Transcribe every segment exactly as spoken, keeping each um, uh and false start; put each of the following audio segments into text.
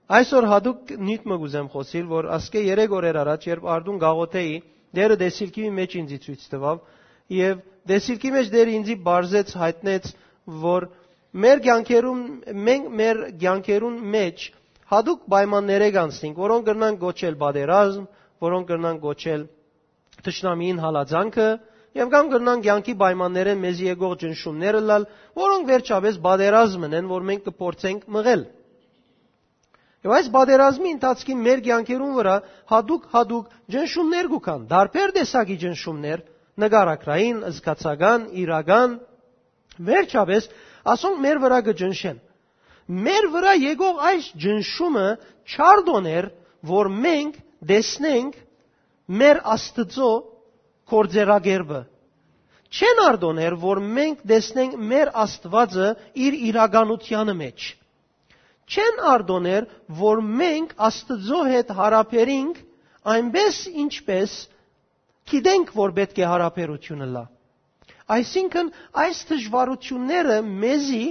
Այսօր յատուկ նիւթ մը կ'ուզեմ խօսիլ, որ ասկէ երեք օրեր առաջ, երբ արդուն կ'աղօթէի, Տէրը տեսիլքի մէջ ինձի ցոյց տուաւ, եւ տեսիլքի մէջ Տէրը ինձի պարզեց, յայտնեց, որ մեր կեանքերուն, մենք մեր կեանքերուն մէջ յատուկ պայմաններէ կանցնենք, որոնք կրնան կոչել պատերազմ, որոնք կրնան կոչել թշնամիին հալածանքը, եւ կամ կրնան կեանքի պայմաններէն մեզի եկող ճնշումներ ըլլալ, որոնք վերջապէս պատերազմ են, որ մենք կը փորձենք մղել։ Եւ այս պատերազմի ընթացքին մեր կեանքերուն վրայ յատուկ-յատուկ ճնշումներ կու գան, տարբեր տեսակի ճնշումներ, նկարագրային, զգացական, իրական, վերջապէս ասոնք մեր վրայ կը ճնշեն։ Մեր վրայ եկող այս ճնշումը չարդոներ, որ մենք տեսնենք մեր Աստուծոյ գործերակերպը։ Չեն արդոներ, որ մենք տեսնենք մեր Աստուածը իր իրականութեանը մէջ։ Չեն արդոներ, որ մենք Աստուծոյ հետ յարաբերինք այնպէս, ինչպէս գիտենք, որ պէտք է յարաբերութիւնը լա։ Այսինքն, այս դժվարութիւնները մեզի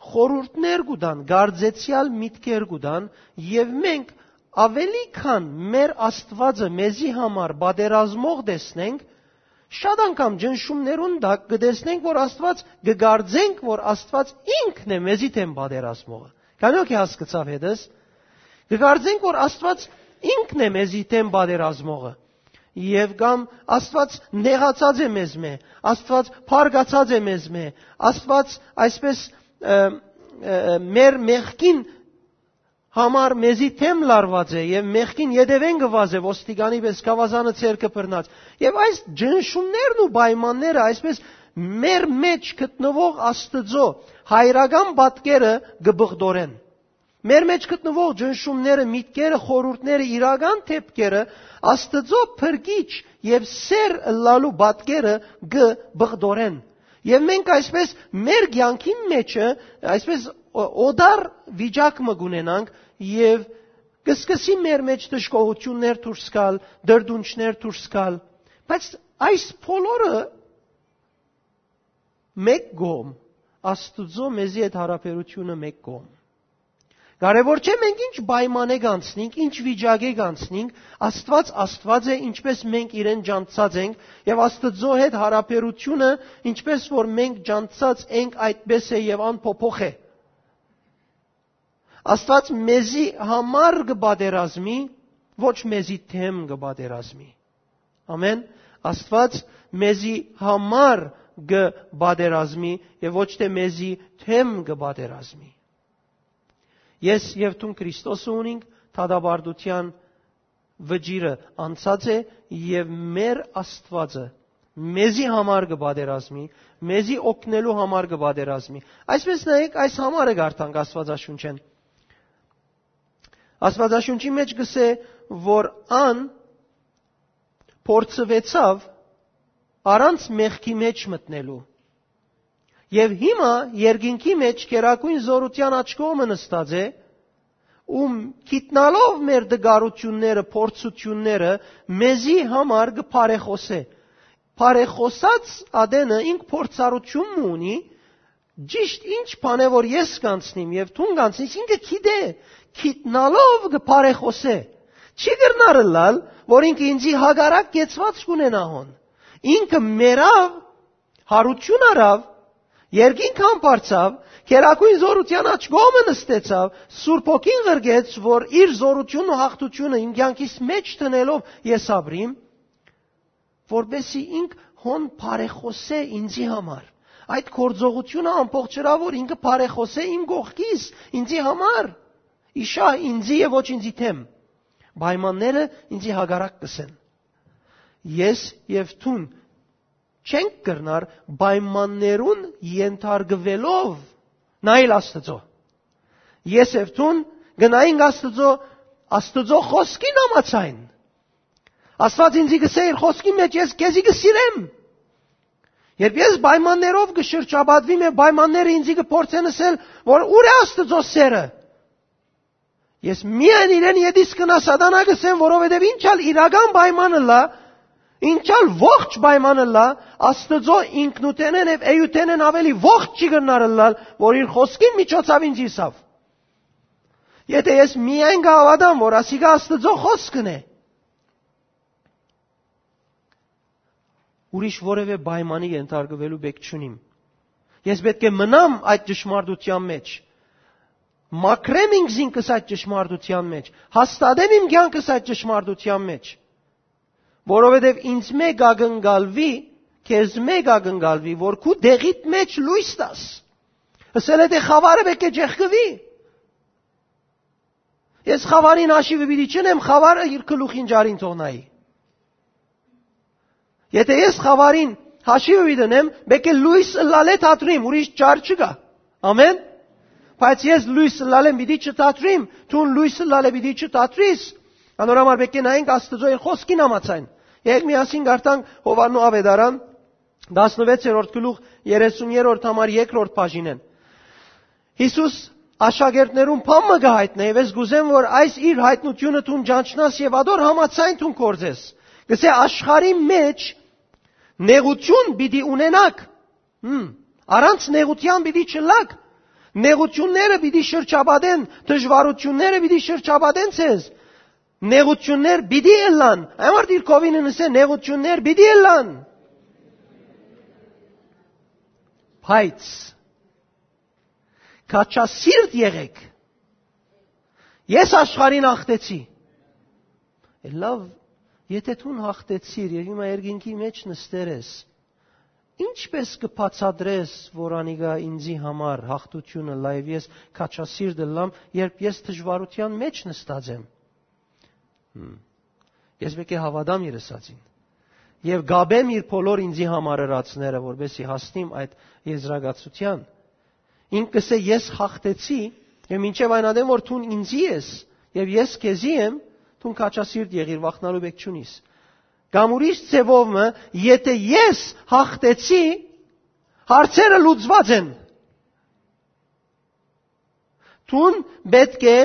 խորհուրդներ կու տան, կարծեցեալ միտքեր կու տան, եւ մենք ավելի քան մեր Աստուածը մեզի համար պատերազմող տեսնենք, շատ անգամ ճնշումներուն տակ կը տեսնենք, որ Աստուած, կը կարծենք, որ Աստուած ինքն է մեզի դէմ պատերազմողը։ Քանիոք է հասկացաւ հետս, կը կարծենք, որ Աստուած ինքն է մեզի դէմ պատերազմողը, եւ կամ Աստուած նեղացած է մեզմէ, Աստուած փառկացած է մեզմէ, Աստուած այսպես, ը, ը, մեր մեղքին համար մեզի դէմ լարուած է եւ մեղքին ետեւէն գուած է ոստիկանի պես գաւազանը ձեռքը բռնած։ Եւ այս ճնշումներն ու պայմանները այսպես մեր մէջ գտնուող Աստուծոյ հայրական պատկերը կը բղդորեն։ Մեր մէջ գտնուող ճնշումները, միտքերը, խորհուրդները, իրական դէպքերը Աստուծոյ փրկիչ եւ սէր ըլլալու պատկերը կը բղդորեն։ Եւ մենք այսպես մեր կեանքին մէջը այսպես օ-, օտար վիճակ մը կունենանք եւ կը սկսի մեր մէջ դժգոհութիւններ դուրս գալ, դրդունչներ դուրս գալ։ Բայց այս բոլորը մէկ կողմ, Աստուծոյ մեզի հետ յարաբերութիւնը մէկ կողմ։ Կարեւոր չէ մենք ինչ պայմանէ կանցնենք, ինչ վիճակէ կանցնենք, Աստուած Աստուած է, ինչպես մենք իրեն ճանչցած ենք, եւ Աստուծոյ հետ յարաբերութիւնը, ինչպես որ մենք ճանչցած ենք, այդպես է եւ անփոփոխ է։ Աստուած մեզի համար կը պատերազմի, ոչ մեզի դէմ կը պատերազմի։ Ամեն։ Աստուած մեզի համար կը պատերազմի եւ ոչ թէ մեզի դէմ կը պատերազմի։ Ես եւ դուն Քրիստոսը ունինք, դատապարտութեան վճիռը անցած է եւ մեր Աստուածը մեզի համար կը պատերազմի, մեզի օգնելու համար կը պատերազմի։ Այսպես նայեք, այս համարը կարդանք Աստուածաշունչէն։ Աստուածաշունչի մէջ կ'ըսէ, որ ան փորձուեցաւ առանց մեղքի մէջ մտնելու։ Եւ հիմա երկինքի մէջ գերագոյն զօրութեան աջ կողմը նստած է, ում գիտնալով մեր դժգոհութիւնները, փորձութիւնները, մեզի համար կը բարեխօսէ։ Բարեխօսած ատենը ինք փորձառութիւն մը ունի, ճիշդ ինչ բան է, որ ես կանցնիմ եւ դուն կանցնես, ինքը գիտէ, գիտնալով կը բարեխօսէ։ Չի կրնար ըլլալ, որ ինքը ինձի հակառակ կեցուած կ'ունենայ հոն։ Ինքը մեռաւ, յարութիւն առաւ, երկինք համբարձաւ, գերագոյն զօրութեան աջ կողմը նստեցաւ, Սուրբ Հոգին ղրկեց, որ իր զօրութիւնն ու յաղթութիւնը իմ կեանքիս մէջ դնելով ես ապրիմ, որպեսզի ինք հոն բարեխօսէ ինձի համար։ Այդ գործողութիւնը ամբողջըրա, որ ինքը բարեխօսէ իմ կողքիս, ինձի համար, իշա ինձի եւ ոչ ինձի դէմ։ Պայմանները ինձի հակառակ կ'ըսեն։ Ես եւ դուն չենք կրնար պայմաններուն ենթարկուելով նայել Աստուծոյ։ Ես եւ դուն կը նայենք Աստուծոյ, Աստուծոյ խօսքին համաձայն։ Աստուած ինձի կ'ըսէ իր խօսքի մէջ, «Ես քեզի կը սիրեմ»։ Երբ ես պայմաններով կը շրջապատվիմ եւ պայմանները ինձի կը փորձեն ըսել, որ ո՞ւր է Աստուծոյ սէրը, ես միայն իրեն ետիս կնայ, սատանայ կ'ըսեմ, որովհետեւ ինչ ալ իրական պայման ըլլայ, ինչ ալ ողջ պայման ըլլայ, Աստուծոյ ինքնութենէն եւ էութենէն աւելի ողջ չի կրնար ըլլալ, որ իր խօսքին միջոցաւ ինձ ըսաւ։ Եթէ ես միայն կը հաւատամ, որ ասիկա Աստուծոյ խօսքն է, ուրիշ որեւէ պայմանի ենթարկուելու պէք չունիմ։ Ես պէտք է մնամ այդ ճշմարտության մեջ, մաքրեմ ինքզինքս այդ ճշմարտության մեջ, հաստատեմ իմ կեանքս այդ ճշմարտության մեջ, որովհետեւ ինձմէ կ'ակնկալուի, քեզմէ կ'ակնկալուի, որ քու դեղիդ մեջ լոյս տաս։ Ըսել է թէ խաւարը պէտք է ճեղքուի։ Ես խաւարին հաշիվը պիտի չընեմ, խաւարը իր գլուխին ճարին թողնայի։ Եթէ ես խաւարին հաշիվը պիտի ընեմ, պէտք է լոյս ըլլալէ թատրիմ, ուրիշ ճար չկայ։ Ամեն։ Բայց ես լոյս ըլլալէ պիտի չթատրիմ, դուն լոյս ըլլալէ պիտի չթատրիս։ Անոր համար պէտք է նայենք Աստուծոյ խօսքին համաձայն։ Եկեք միասին կարդանք Յովհաննու Աւետարան, տասնվեցերորդ գլուխ, երեսուն երրորդ համար երկրորդ բաժինէն։ Յիսուս աշակերտներուն բան մը կը յայտնէ, եւ ես կ'ուզեմ, որ այս իր յայտնութիւնը դուն ճանչնաս եւ ադոր համաձայն դուն գործես։ Կ'ըսէ, աշխարհի մեջ նեղութիւն պիտի ունենաք, հմ, առանց նեղութեան պիտի չըլլաք։ Նեղութիւնները պիտի շրջապատեն, դժուարութիւնները պիտի շրջապատեն ձեզ։ Նեղութիւններ պիտի ըլլան։ Այն մարդիկ կովին ըսէ, նեղութիւններ պիտի ըլլան։ Բայց քաջասիրտ եղէք։ Ես աշխարհին հաղթեցի։ Լավ, եթէ դուն հաղթեցիր եւ հիմա երկինքի մեջ նստեր ես, ինչպէս կը բացատրես, որ անիկա ինձի համար հաղթութիւնը լայ, ես քաջասիրտ ըլլամ, երբ ես դժուարութեան մեջ նստած եմ։ Հմ։ Ես պէտք է հաւատամ իր ըսածին եւ կապեմ իր բոլոր ինձի համար ըրածները, որպեսզի հասնիմ այդ եզրակացութեան։ Ինք կ'ըսէ, «Ես հաղթեցի, եւ մինչեւ այն ատեն, որ դուն ինձի ես, եւ ես քեզի եմ, դուն քաջասիրտ եղիր, վախնալու պէք չունիս»։ Կամ ուրիշ ձեւով մը, եթէ ես հաղթեցի, հարցերը լուծուած են։ Դուն պէտք է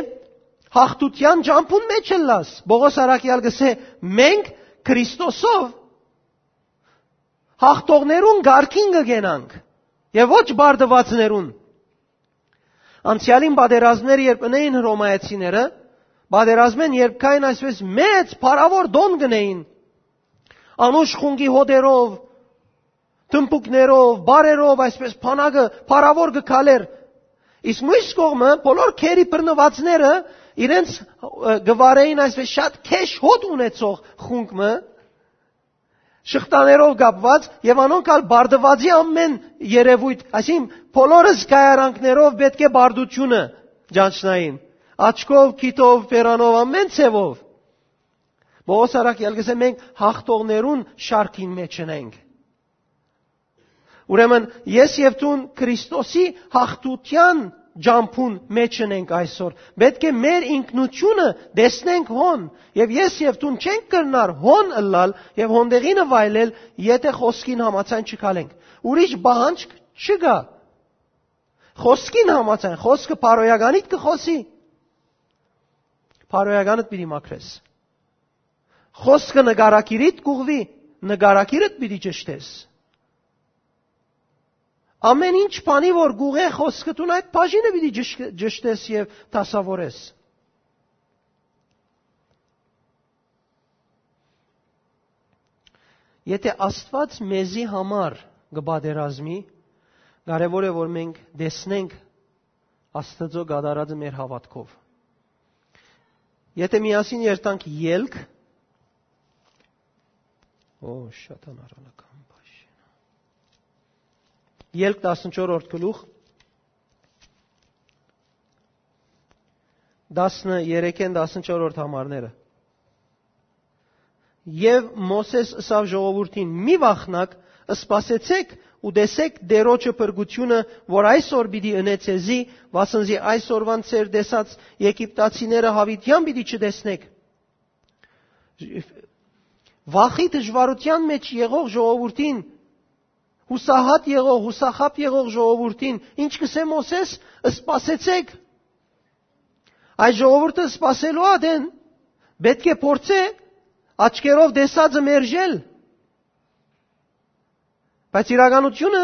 հաղթութեան ճամբուն մեջ ըլլաս։ Պողոս առաքեալ կ'ըսէ, մենք Քրիստոսով հաղթողներուն կարգին կը կենանք եւ ոչ բարդուածներուն։ Անցեալին պատերազմներ երբ ընէին հռոմայեցիները, պատերազմէն երբ կային այսպես մեծ փառաւոր տոն կ'ընէին, անուշ խունկի հոտերով, թմբուկներով, բարերով, այսպես բանակը փառաւոր կը քալէր։ Իսկ մյուս կողմը, բոլոր գերի բռնուածները իրենց, ը, կը վարէին այսպես շատ քեշ հոտ ունեցող խունկ մը, շղթաներով կապուած, եւ անոնք ալ բարդուածի ամեն երեւոյթ, այսինքն բոլոր զգայարանքներով պէտք է բարդութիւնը ճանչնային, աչքով, քիթով, բերանով, ամեն ձեւով։ Պողոս առաքեալ կ'ըսէ, մենք հաղթողներուն շարքին մեջ ենք։ Ուրեմն ես եւ դուն Քրիստոսի հաղթութեան ճամբուն մեջ ենք այսօր։ Պէտք է մեր ինքնութիւնը տեսնենք հոն, եւ ես եւ դուն չենք կրնար հոն ըլլալ եւ հոն տեղինը վայելել, եթէ խօսքին համաձայն չգալենք։ Ուրիշ պահանջ չկայ։ Խօսքին համաձայն, խօսքը բարոյականիդ կը խօսի, բարոյականդ պիտի մաքրես։ Խօսքը նկարագիրիդ կ'ուղղուի, նկարագիրդ պիտի ճշտես։ Ամեն ինչ բանի որ կ'ուղղէ խօսքը, դուն այդ բաժինը պիտի ճշ-, ճշտես եւ դասաւորես։ Եթէ Աստուած մեզի համար կը պատերազմի, կարեւոր է որ մենք տեսնենք Աստուծոյ կատարածը մեր հաւատքով։ Եթէ միասին երթանք Ելք, օ, շատ անառանական բաժին։ Ելք տասնչորրորդ գլուխ, տասներեքէն տասնչորրորդ համարները։ Եւ Մովսէս ըսաւ ժողովուրդին. «Մի վախնաք, սպասեցէք ու տեսէք Տէրոջը փրկութիւնը, որ այսօր պիտի ընէ ձեզի, վասն զի այսօրուան ձեր տեսած եգիպտացիները յաւիտեան պիտի չտեսնէք»։ Վախի դժուարութեան մեջ եղող ժողովուրդին, յուսահատ եղող, յուսախաբ եղող ժողովուրդին, ինչ կ'ըսէ Մովսէս, սպասեցէք։ Այս ժողովուրդը սպասելու ատեն պէտք է փորձէ աչքերով տեսածը մերժել։ Բայց իրականությունը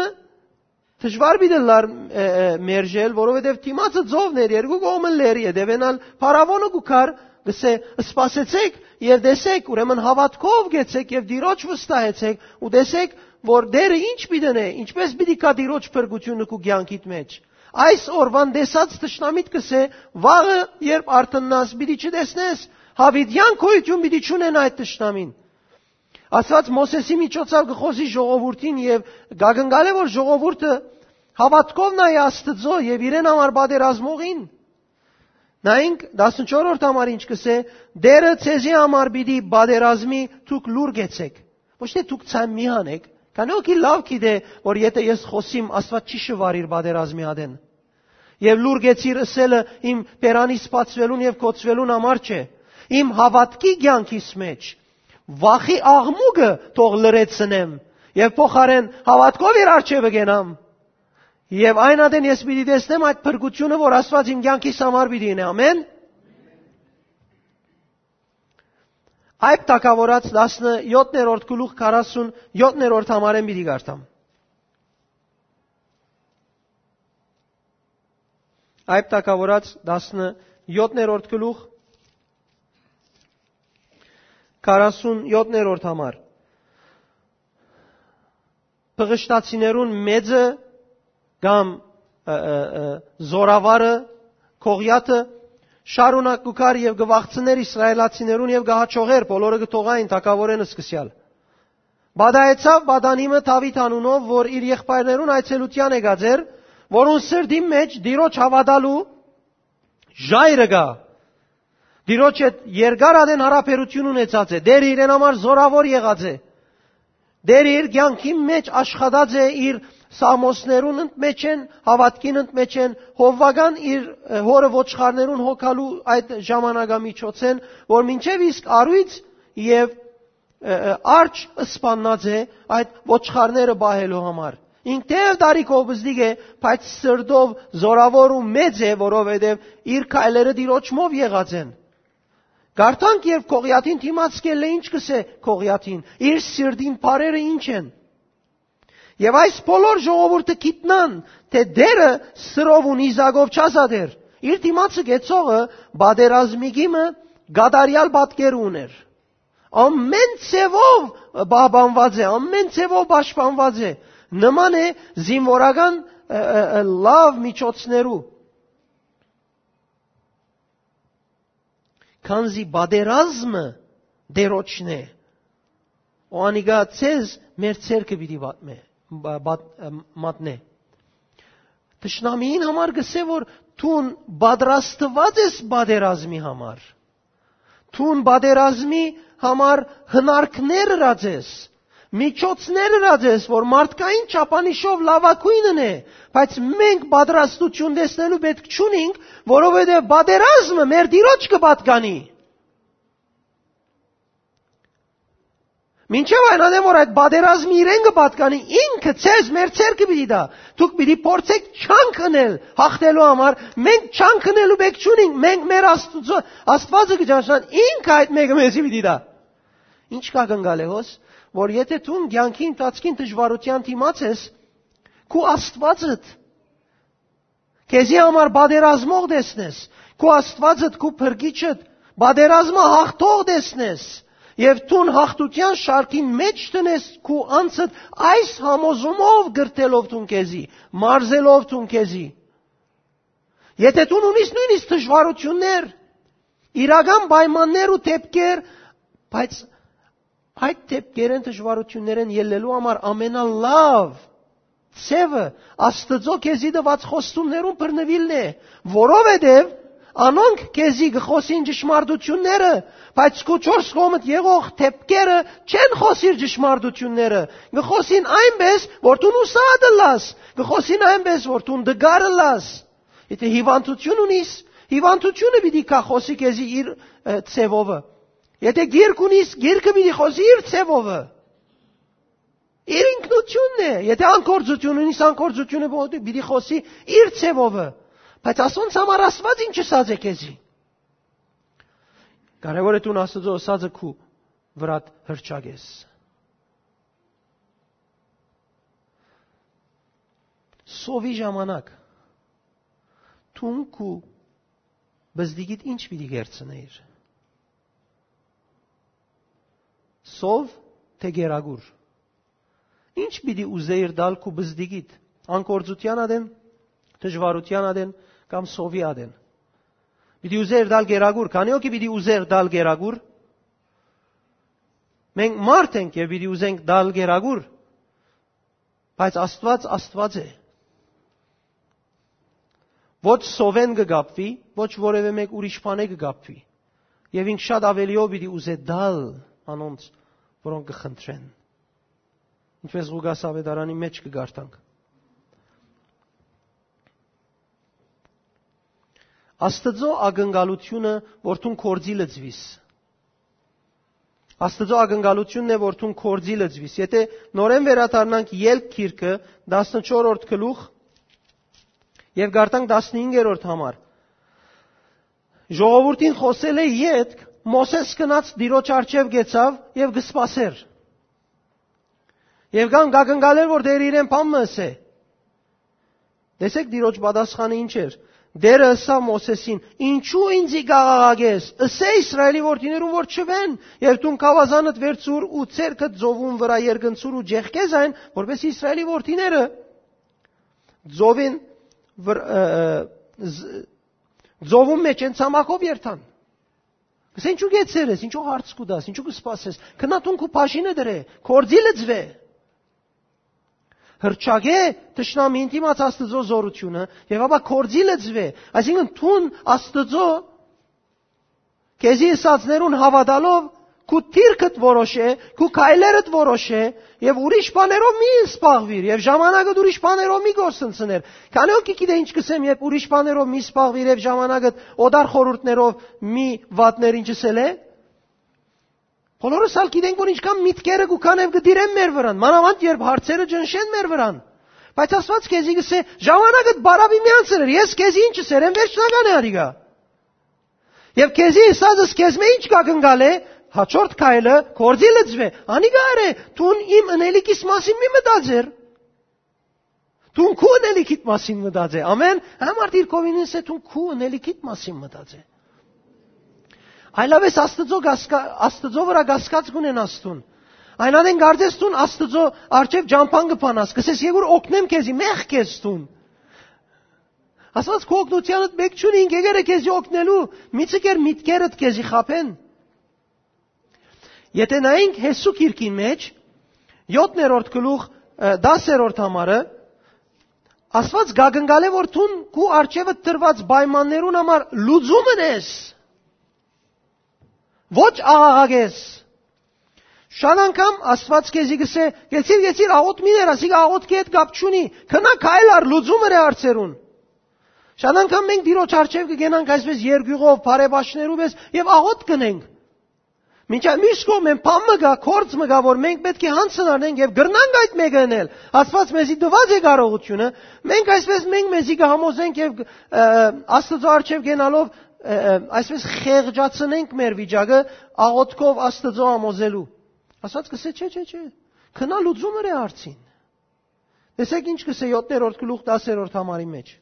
Դժուար պիտի ըլլար, ը, ը, մերժել, որովհետեւ դիմացը ծովն էր, երկու կողմը լեռ, ետեւէն ալ փարաւոնը կու գար, կ'ըսէ. «Սպասեցէք եւ տեսէք, ուրեմն հաւատքով գեցէք եւ Տիրոջ վստահեցէք ու տեսէք, որ Տէրը ինչ պիտի ընէ, ինչպէս պիտի գայ Տիրոջ փրկութիւնը քու կեանքիդ մէջ»։ Այս օրուան տեսած թշնամիդ կ'ըսէ. «Վաղը երբ արթննաս, պիտի չտեսնես, յաւիտեան գոյութիւն պիտի չունենայ այդ թշնամին»։ Աստուած Մովսէսի միջոցով կը խօսի ժողովուրդին եւ կ'ակնկալէ, որ ժողովուրդը հաւատքով նայ Աստուծոյ եւ իրեն համար պատերազմողին։ Նայենք, տասնչորրորդ համար ինչ կ'ըսէ. «Տէրը ձեզի համար պիտի պատերազմի, դուք լուր գեցէք»։ Ոչ թէ դուք ցայ մի հանէք, քանի որ հոգի լաւ գիտէ, որ եթէ ես խօսիմ, Աստուած չի շուար իր պատերազմի ատեն։ Եւ լուր գեցիր ըսելը իմ բերանիս բացուելուն եւ գոցուելուն համար չէ, իմ հաւատքի կեանքիս մէջ։ Վախի աղմուկը թող լռեցնեմ եւ փոխարէն հաւատքով իր առջեւը կենամ։ Եւ այն ատեն ես պիտի տեսնեմ այդ փրկութիւնը, որ Աստուած իմ կեանքիս համար պիտի ընէ։ Ամեն։ Այդ թագաւորաց տասնյոթերորդ գլուխ, քառասունյոթերորդ համարէն պիտի կարդամ։ Այդ թագաւորաց տասնյոթերորդ գլուխ, քառասունյոթերորդ համար։ Բղշտացիներուն մեծը կամ, ը, ը, ը, զորավարը, Գողիաթը, շարունակ կու գար եւ կը վախցներ իսրայելացիներուն եւ կը հաջողեր, բոլորը կը թողային թագաւորէն սկսեալ։ Պատահեցաւ պատանի մը Դաւիթ անունով, որ իր եղբայրներուն այցելութեան եկած էր, որուն սրտին մէջ Տիրոջ հաւատալու ժայռը կայ։ Տիրոջ հետ երկար ատեն յարաբերութիւն ունեցած է։ Տէրը իրեն համար զորաւոր եղած է։ Տէրը իր կեանքին մէջ աշխատած է իր սաղմոսներուն ընդմէջէն, հաւատքին ընդմէջէն, հովուական իր, ը, հօրը ոչխարներուն հոգալու այդ ժամանակամիջոցէն, որ մինչեւ իսկ առոյց եւ, ը, ը, արջ սպաննած է այդ ոչխարները պահելու համար։ Ինք թէեւ տարիքով պզտիկ է, բայց սրտով զորաւոր ու մեծ է, որովհետեւ իր քայլերը Տիրոջմով եղած են։ Կարդանք, երբ Գողիաթին դիմաց կ'ելլէ, ինչ կ'ըսէ Գողիաթին, իր սիրտին բառերը ինչ են։ Եւ այս բոլոր ժողովուրդը գիտնան, թէ Տէրը սրով ու նիզակով չազատեր։ Իր դիմացը գեցողը պատերազմի գիմը կատարեալ պատկեր ունէր։ Ամեն ձևով պահպանված է, ամեն ձևով պաշտպանված է։ Նման է զինվորական, ը, ը, ը, լաւ միջոցներու։ Քանզի պատերազմը Տէրոջն է, ու անիկա ձեզ մեր ձեռքը պիտի պատմէ, բա-, բադ-, ը, մատնէ։ Թշնամիին համար կ'ըսէ, որ դուն պատրաստուած ես պատերազմի համար։ Դուն պատերազմի համար հնարքներ ըրած ես, միջոցներ ըրած ես, որ մարդկային չափանիշով լաւագոյնն է, բայց մենք պատրաստություն տեսնելու պէտք չունինք, որովհետեւ պատերազմը մեր Տիրոջ կը պատկանի։ Մինչեւ այն ատեն, որ այդ պատերազմը իրեն կը պատկանի, ինքը ձեզ մեր ձեռքը պիտի տայ։ Դուք պիտի փորձեք չանք ընել յաղթելու համար, մենք չանք ընելու պէտք չունինք, մենք մեր Աստուծո, Աստուածը կը ճանչնան, ինքը այդ մէկը մեզի պիտի տայ։ Ինչ կ'ակնկալէ հոս, որ եթէ դուն կեանքի ընթացքին դժուարութեան դիմաց ես, քու Աստուածդ քեզի համար պատերազմող տեսնես, քու Աստուածդ, քու փրկիչդ, պատերազմը հաղթող տեսնես, եւ դուն հաղթութեան շարքին մէջ դնես քու անձդ այս համոզումով կրթելով դուն քեզի, մարզելով դուն քեզի։ Եթէ դուն ունիս նոյնիսկ դժուարութիւններ, իրական պայմաններ ու դեպքեր, բայց այդ դեպքերէն, դժուարութիւններէն ելլելու համար ամենալաւ ձեւը Աստուծոյ քեզի տուած խոստումներուն բռնուիլն է, որովհետեւ անոնք քեզի կը խօսին ճշմարտութիւնները, բայց քու չորս կողմդ եղող դեպքերը չեն խօսիր ճշմարտութիւնները, կը խօսին այնպէս, որ դուն ուսադ ըլլաս, կը խօսին այնպէս, որ դուն տկար ըլլաս։ Եթէ հիվանդութիւն ունիս, հիվանդութիւնը պիտի գայ խօսի քեզի իր, ը, ձևովը։ Եթէ գիրք ունիս, գիրքը պիտի խօսի իր ձևովը։ Իր ինքնութիւնն է։ Եթէ անկործութիւն ունիս, անկործութիւնը պիտի, պիտի խօսի իր ձևովը։ Բայց ասոնց համար Աստուած ինչ ըսած է քեզի։ Կարեւոր է դուն Աստուծոյ ըսածը քու վրադ հրճակես։ Սովի ժամանակ դուն քու բզդիկիդ ի՞նչ պիտի կերցնէիր։ Սով թէ կերակուր։ Ի՞նչ պիտի ուզէիր տալ քու բզդիկիդ, անկործութեան ատեն, դժուարութեան ատեն կամ սովի ատեն։ Պիտի ուզէիր տալ կերակուր, քանի՞ հոգի պիտի ուզէր տալ կերակուր։ Մենք մարդ ենք եւ պիտի ուզենք տալ կերակուր, բայց Աստուած Աստուած է։ Ոչ սովէն կը կապուի, ոչ որեւէ մէկ ուրիշ բանէ կը կապուի։ Եւ ինք շատ աւելիով պիտի ուզէ տալ անոնց, որոնք կը խնդրեն։ Ինչպես Ղուկաս աւետարանի մէջ կը կարդանք։ Աստուծոյ ակնկալութիւնը, որ դուն գործի լծուիս։ Աստուծոյ ակնկալութիւնն է, որ դուն գործի լծուիս։ Եթէ նորէն վերադառնանք Ելք գիրքը, տասնչորսերորդ գլուխ, եւ կարդանք տասնհինգերորդ համար։ Ժողովուրդին խօսելէ ետք, Մովսէս գնաց Տիրոջ առջեւ, կեցաւ եւ կը սպասէր։ Եւ կան կ'ակնկալէր, որ Տէրը իրեն բան մը ըսէ։ Տեսէք, Տիրոջ պատասխանը ինչ էր։ Տէրը ըսաւ Մովսէսին. «Ինչո՞ւ ինծի կ'աղաղակես։ Ըսէ Իսրայէլի որդիներուն, որ չուեն, եւ դուն գաւազանդ վերցուր ու ձեռքդ ծովուն վրայ երկնցուր ու ճեղքէ զայն, որպէս Իսրայէլի որդիները ծովին վր-, ը, ը, զ-, ծովուն մէջ են ցամաքով երթան»։ Կսե, ինչու գեցեր ես, ինչու հարց կու տաս, ինչու կը սպասես։ Քնա դուն քու բաժինը դրէ, գործի լծուէ։ Հրճակէ թշնամին դիմաց Աստուծոյ զօրութիւնը եւ ապա գործի լծուէ։ Այսինքն դուն Աստուծոյ քեզի ըսածներուն հաւատալով քու դիրքդ որոշէ, քու քայլերդ որոշէ եւ ուրիշ բաներով մի զբաղուիր եւ ժամանակդ ուրիշ բաներով մի գործընծներ։ Քանի՞ հոգի գիտէ ինչ կսեմ, երբ ուրիշ բաներով մի զբաղուիր եւ ժամանակդ օտար խորհուրդներով մի վատներ, ինչ ըսել է։ Բոլորս ալ գիտենք, որ ինչքան միտքերը կու քան եւ կը տիրեն մեր վրան, մանաւանդ երբ հարցերը ճնշեն մեր վրան։ Բայց Աստուած քեզի կսէ. «Ժամանակդ բարաւի մի անցներ, ես քեզի ինչ ըսեր եմ, վերջնական է արիգա»։ Եւ քեզի ըսածս քեզմէ ինչ կ'ակնկալէ, հաջորդ քայլը, գործի լծուէ, անիկա արէ, դուն իմ ընելիքիս մասին մի մտածեր։ Դուն քու ընելիքիդ մասին մտածէ։ Ամեն, համ արդի իր կողմինս է, դուն քու ընելիքիդ մասին մտածէ։ Այլապես Աստծո կասկա-, Աստծո վրա կասկած կունենաս դուն։ Այն ատեն կարծես դուն Աստծո առջև ճամփան կը փանաս, կսես, «Եգուր օգնեմ քեզի», մեղք ես դուն։ Աստված քու օգնութեանդ մէկ չունի, ինք եկեր է քեզի օգնելու, մի ցկեր միտքերդ քեզի խաբեն։ Եթէ նայենք Յեսու գիրքին մէջ, յոթերորդ գլուխ, ը, տասերորդ համարը, Աստված կ'ակնկալէ, որ դուն քու առջեւը դրուած պայմաններուն համար լուծում ընես, ոչ աղաղակես։ Շատ անգամ Աստված քեզի կսէ. «Գեցիր, գեցիր, աղոթ մի ներ, ասիկա աղոթքի հետ կապ չունի, քնա քայլ ար, լուծում ըրէ հարցերուն»։ Շատ անգամ մենք Տիրոջ առջեւ կգնանք այսպես երկյուղով, բարեբաշխներու պես եւ աղոթ կնենք։ Մինչդեռ մյուս կողմէն բան մը կայ, գործ մը կայ, որ մենք պէտք է յանձն առնենք եւ կրնանք այդ մէկը ընել։ Աստված մեզի տուած է կարողութիւնը, մենք այսպես մենք մեզի կհամոզենք եւ, ը, Աստծո առջեւ գնալով, ը, ը, այսպես խեղճացնենք մեր վիճակը աղոթքով Աստծո համոզելու։ Աստված կսէ. «Չէ, չէ, չէ, քնա լուծում ըրէ հարցին»։ Տեսեք ինչ կսէ յոթերորդ գլուխ տասերորդ համարի մէջ։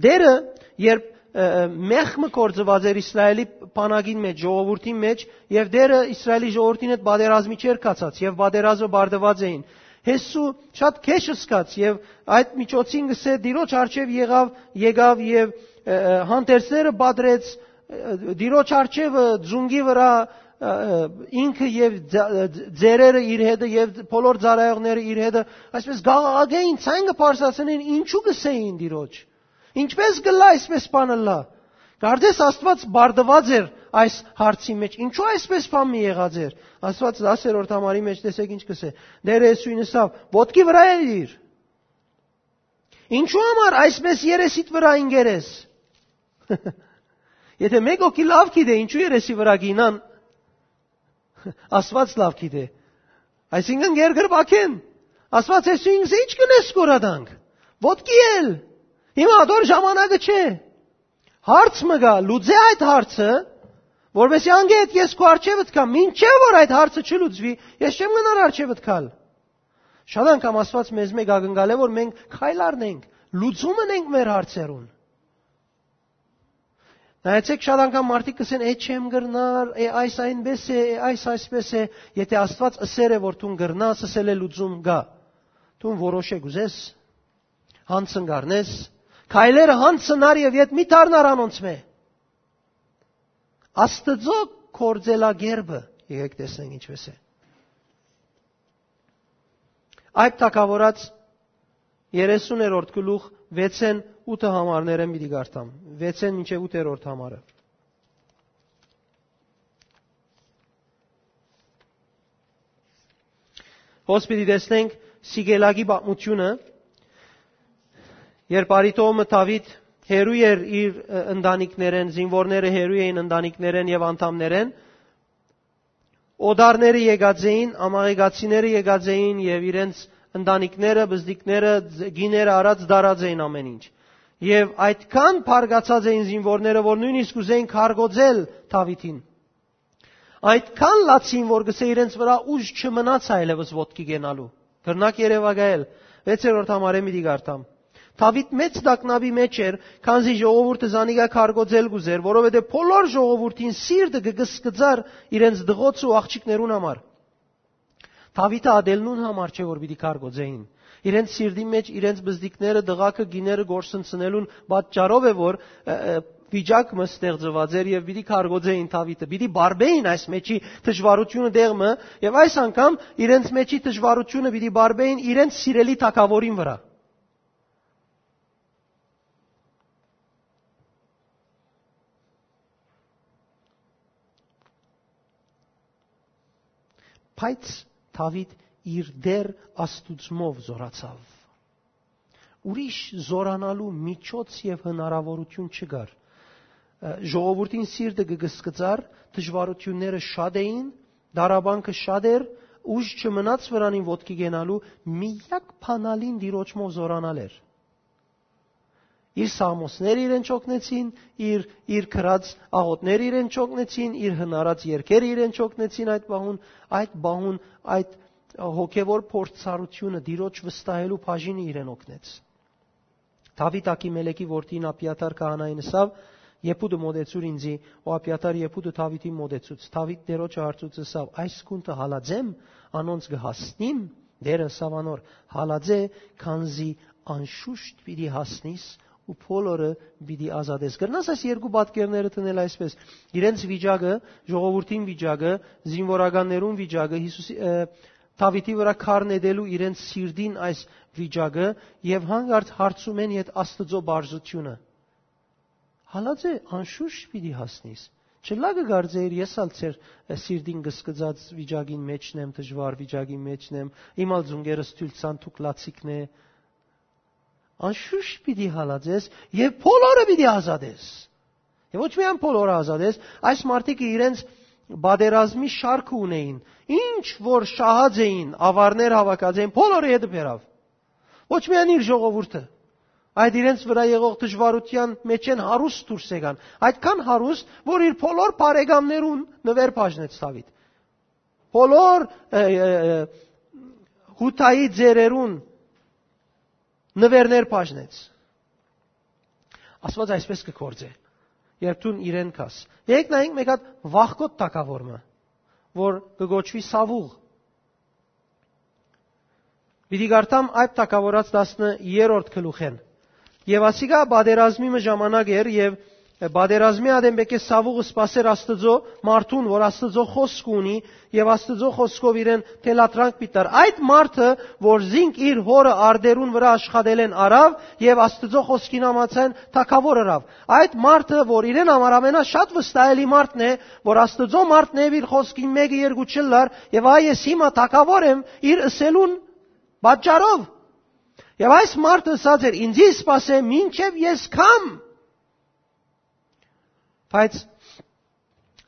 Տէրը, երբ, ը, ը, մեղք մը գործուած էր Իսրայէլի բանակին մէջ, ժողովուրդին մէջ, եւ Տէրը Իսրայէլի ժողովուրդին հետ պատերազմի չէր գացած, եւ պատերազմը պարտուած էին, Յեսու շատ քեշ սկաց, եւ այդ միջոցին կսէ Տիրոջ առջեւ եղաւ, եկաւ եւ, ը, ը, հանդերձները պատրեց, ը, Տիրոջ առջեւը ձունկի վրա, ը, ը, ինքը եւ ձ-, ը, ձ-, ծերերը իր հետը եւ բոլոր ծառայողները իր հետը, այսպես գաղաղակէին, ցայնը բարձրացնեն, ինչու կսէին Տիրոջ։ Ինչպես կ'ըլլայ այսպես բան ըլլայ։ Կարծես Աստված պարտուած էր այս հարցի մէջ։ Ինչու այսպես բան մի եղած էր։ Աստված տասերորդ համարի մէջ տեսեք ինչ կսէ. «Տէրը Յիսուին ըսաւ. ոտքի վրայ ելիր։ Ինչու համար այսպես երեսիդ վրայ ինկերես»։ Եթե մէկ հոգի լաւ գիտէ, ինչու երեսի վրայ կ'ինան, Աստված լաւ գիտէ։ Այսինքն՝ երկրպագէն։ Աստված Յիսուին կսէ. «Ի՞նչ կ'ընես, կորադանք։ Ոտքի ել։ Հիմա ատոր ժամանակը չէ»։ Հարց մը կայ, լուծէ այդ հարցը, որովհետեւ անգէ հետ ես քու առջեւդ կամ մինչեւ որ այդ հարցը չլուծուի, ես չեմ գնար առջեւդ գալ։ Շատ անգամ Աստուած մեզմէ կ'ակնկալէ, որ մենք քայլ առնենք, լուծում ընենք մեր հարցերուն։ Նայեցէք, շատ անգամ մարդիկ կ'ըսեն. «Է, չեմ կրնար, է, այս այնպէս է, է, այս այսպէս է»։ Եթէ Աստուած ըսեր է, որ դուն կրնաս, ըսել է, լուծում կայ։ Դուն որոշ է կ'ուզես, յանձն կ'առնես, քայլերը յանձն առ եւ ետ մի դառնար անոնցմէ։ Աստուծոյ գործելակերպը, եկեք տեսնենք ինչպէս է։ Այդ թագաւորաց երեսուներորդ գլուխ վեցէն ութը համարներէն պիտի կարդամ։ Վեցէն մինչեւ ութերորդ համարը։ Հոս պիտի տեսնենք Սիգելագի պատմութիւնը, երբ արի տոհմը Դաւիթ հեռու էր իր, ը, ընտանիքներէն, զինուորները հեռու էին ընտանիքներէն եւ անդամներէն, օտարները եկած էին, ամաղեկացիները եկած էին եւ իրենց ընտանիքները, բզդիկները, կիները առած դարած էին ամէն ինչ։ Եւ այդքան բարկացած էին զինուորները, որ նոյնիսկ ուզեին քարկոծել Դաւիթին։ Այդքան լաց էին, որ կ'ըսէ, իրենց վրայ ուժ չմնաց այլեւս ոտքի կենալու։ Կրնաք երեւակայել, վեցերորդ համարէն պիտի կարդամ։ Դաւիթ մեծ տագնապի մէջ էր, քանզի ժողովուրդը զանիկա քարկոծել կ'ուզէր, որովհետեւ բոլոր ժողովուրդին սիրտը կը կսկծար իրենց տղոցը ու աղջիկներուն համար։ Դաւիթը ատել նուն համար չէ, որ պիտի քարկոծեին։ Իրենց սիրտին մէջ իրենց բզդիկները, տղաքը, կիները կորսնցնելուն պատճառով է, որ, ը, ը, վիճակ մը ստեղծուած էր եւ պիտի քարկոծեին Դաւիթը, պիտի բարբեին այս մեջի դժուարութիւնը տեղ մը, եւ այս անգամ իրենց մեջի դժուարութիւնը պիտի բարբեին իրենց սիրելի թագաւորին վրայ։ Բայց Դաւիթ իր Տէր Աստուծմով զօրացաւ։ Ուրիշ զօրանալու միջոց եւ հնարաւորութիւն չկար։ Ը, ժողովուրդին սիրտը կը կսկծար, դժուարութիւնները շատ էին, տառապանքը շատ էր, ուժ չմնաց վրանին ոտքի կենալու, միակ բանալին Տիրոջմով զօրանալ էր։ Իր սաղմոսները իրեն չօգնեցին, իր, իր գրած աղօթները իրեն չօգնեցին, իր հնարած երգերը իրեն չօգնեցին այդ պահուն, այդ պահուն, այդ հոգեվոր փորձառութիւնը, Տիրոջ վստահելու բաժինը իրեն օգնեց։ Դաւիթ Աքիմելեքի որդին Աբիաթար քահանային ըսաւ. «Եփուտը մոտեցուր ինձի», ու Աբիաթար եփուտը Դաւիթին մոտեցուց։ Դաւիթ Տիրոջը հարցուց ըսաւ. «Այս գունտը հալած եմ, անոնց կը հասնի՞մ»։ Տէրը ըսաւ անոր. «Հալած է, քանզի անշուշտ պիտի հասնիս ու բոլորը պիտի ազատես»։ Կրնաս այս երկու պատկերները դնել այսպէս. իրենց վիճակը, ժողովուրդին վիճակը, զինուորականներուն վիճակը, Յիսուսի, ը, Դաւիթի վրայ քար նետելու իրենց սիրտին այս վիճակը եւ հանկարծ հարցումէն յետ Աստուծոյ բարձրութիւնը։ «Հալած է, անշուշտ պիտի հասնիս»։ Չլա կը կարծէիր, ես ալ ձեր, ը, սիրտին կսկծած վիճակին մէջն եմ, դժուար վիճակին մէջն եմ, իմ ալ ծունկերս թոյլ ցան դուք լացիկն է։ Անշուշտ պիտի հալածես եւ բոլորը պիտի ազատես։ Եւ ոչ միայն բոլորը ազատես, այս մարդիկը իրենց պատերազմի շարքը ունեին, ինչ որ շահած էին, ավարներ հաւաքած էին, բոլորը յետը բերաւ։ Ոչ միայն իր ժողովուրդը, այդ իրենց վրայ եղող դժուարութեան մէջէն հարուստ դուրս եկան, այդքան հարուստ, որ իր բոլոր բարեկամներուն նուէր բաժնեց Դաւիթ։ Բոլոր, ը, ը, ը, Յուդայի ծերերուն նուէրներ բաժնեց։ Աստուած այսպէս կը գործէ, երբ դուն իրեն գաս։ Եկեք նայենք մէկ հատ վախկոտ թագաւոր մը, որ կը կոչուի Սաւուղ։ Պիտի կարդամ այդ թագաւորաց տասներորդ գլուխէն։ Եւ ասիկա պատերազմի մը ժամանակ էր, եւ պատերազմի ատեն պէտք է Սաւուղը սպասեր Աստուծոյ մարդուն, որ Աստուծոյ խօսքը ունի, եւ Աստուծոյ խօսքով իրեն թելադրանք պիտի տար։ Այդ մարդը, որ զինք իր հօրը արտերուն վրայ աշխատելէն առաւ, եւ Աստուծոյ խօսքին համաձայն թագաւոր ըրաւ։ Այդ մարդը, որ իրեն համար ամենաշատ վստահելի մարդն է, որ Աստուծոյ մարդն է, իր խօսքին մէկը երկու չըլլար, եւ այ ես հիմա թագաւոր եմ, իր ըսելուն պատճառով։ Եւ այս մարդը ըսած էր. «Ինձի սպասէ, մինչեւ ես գամ»։ Բայց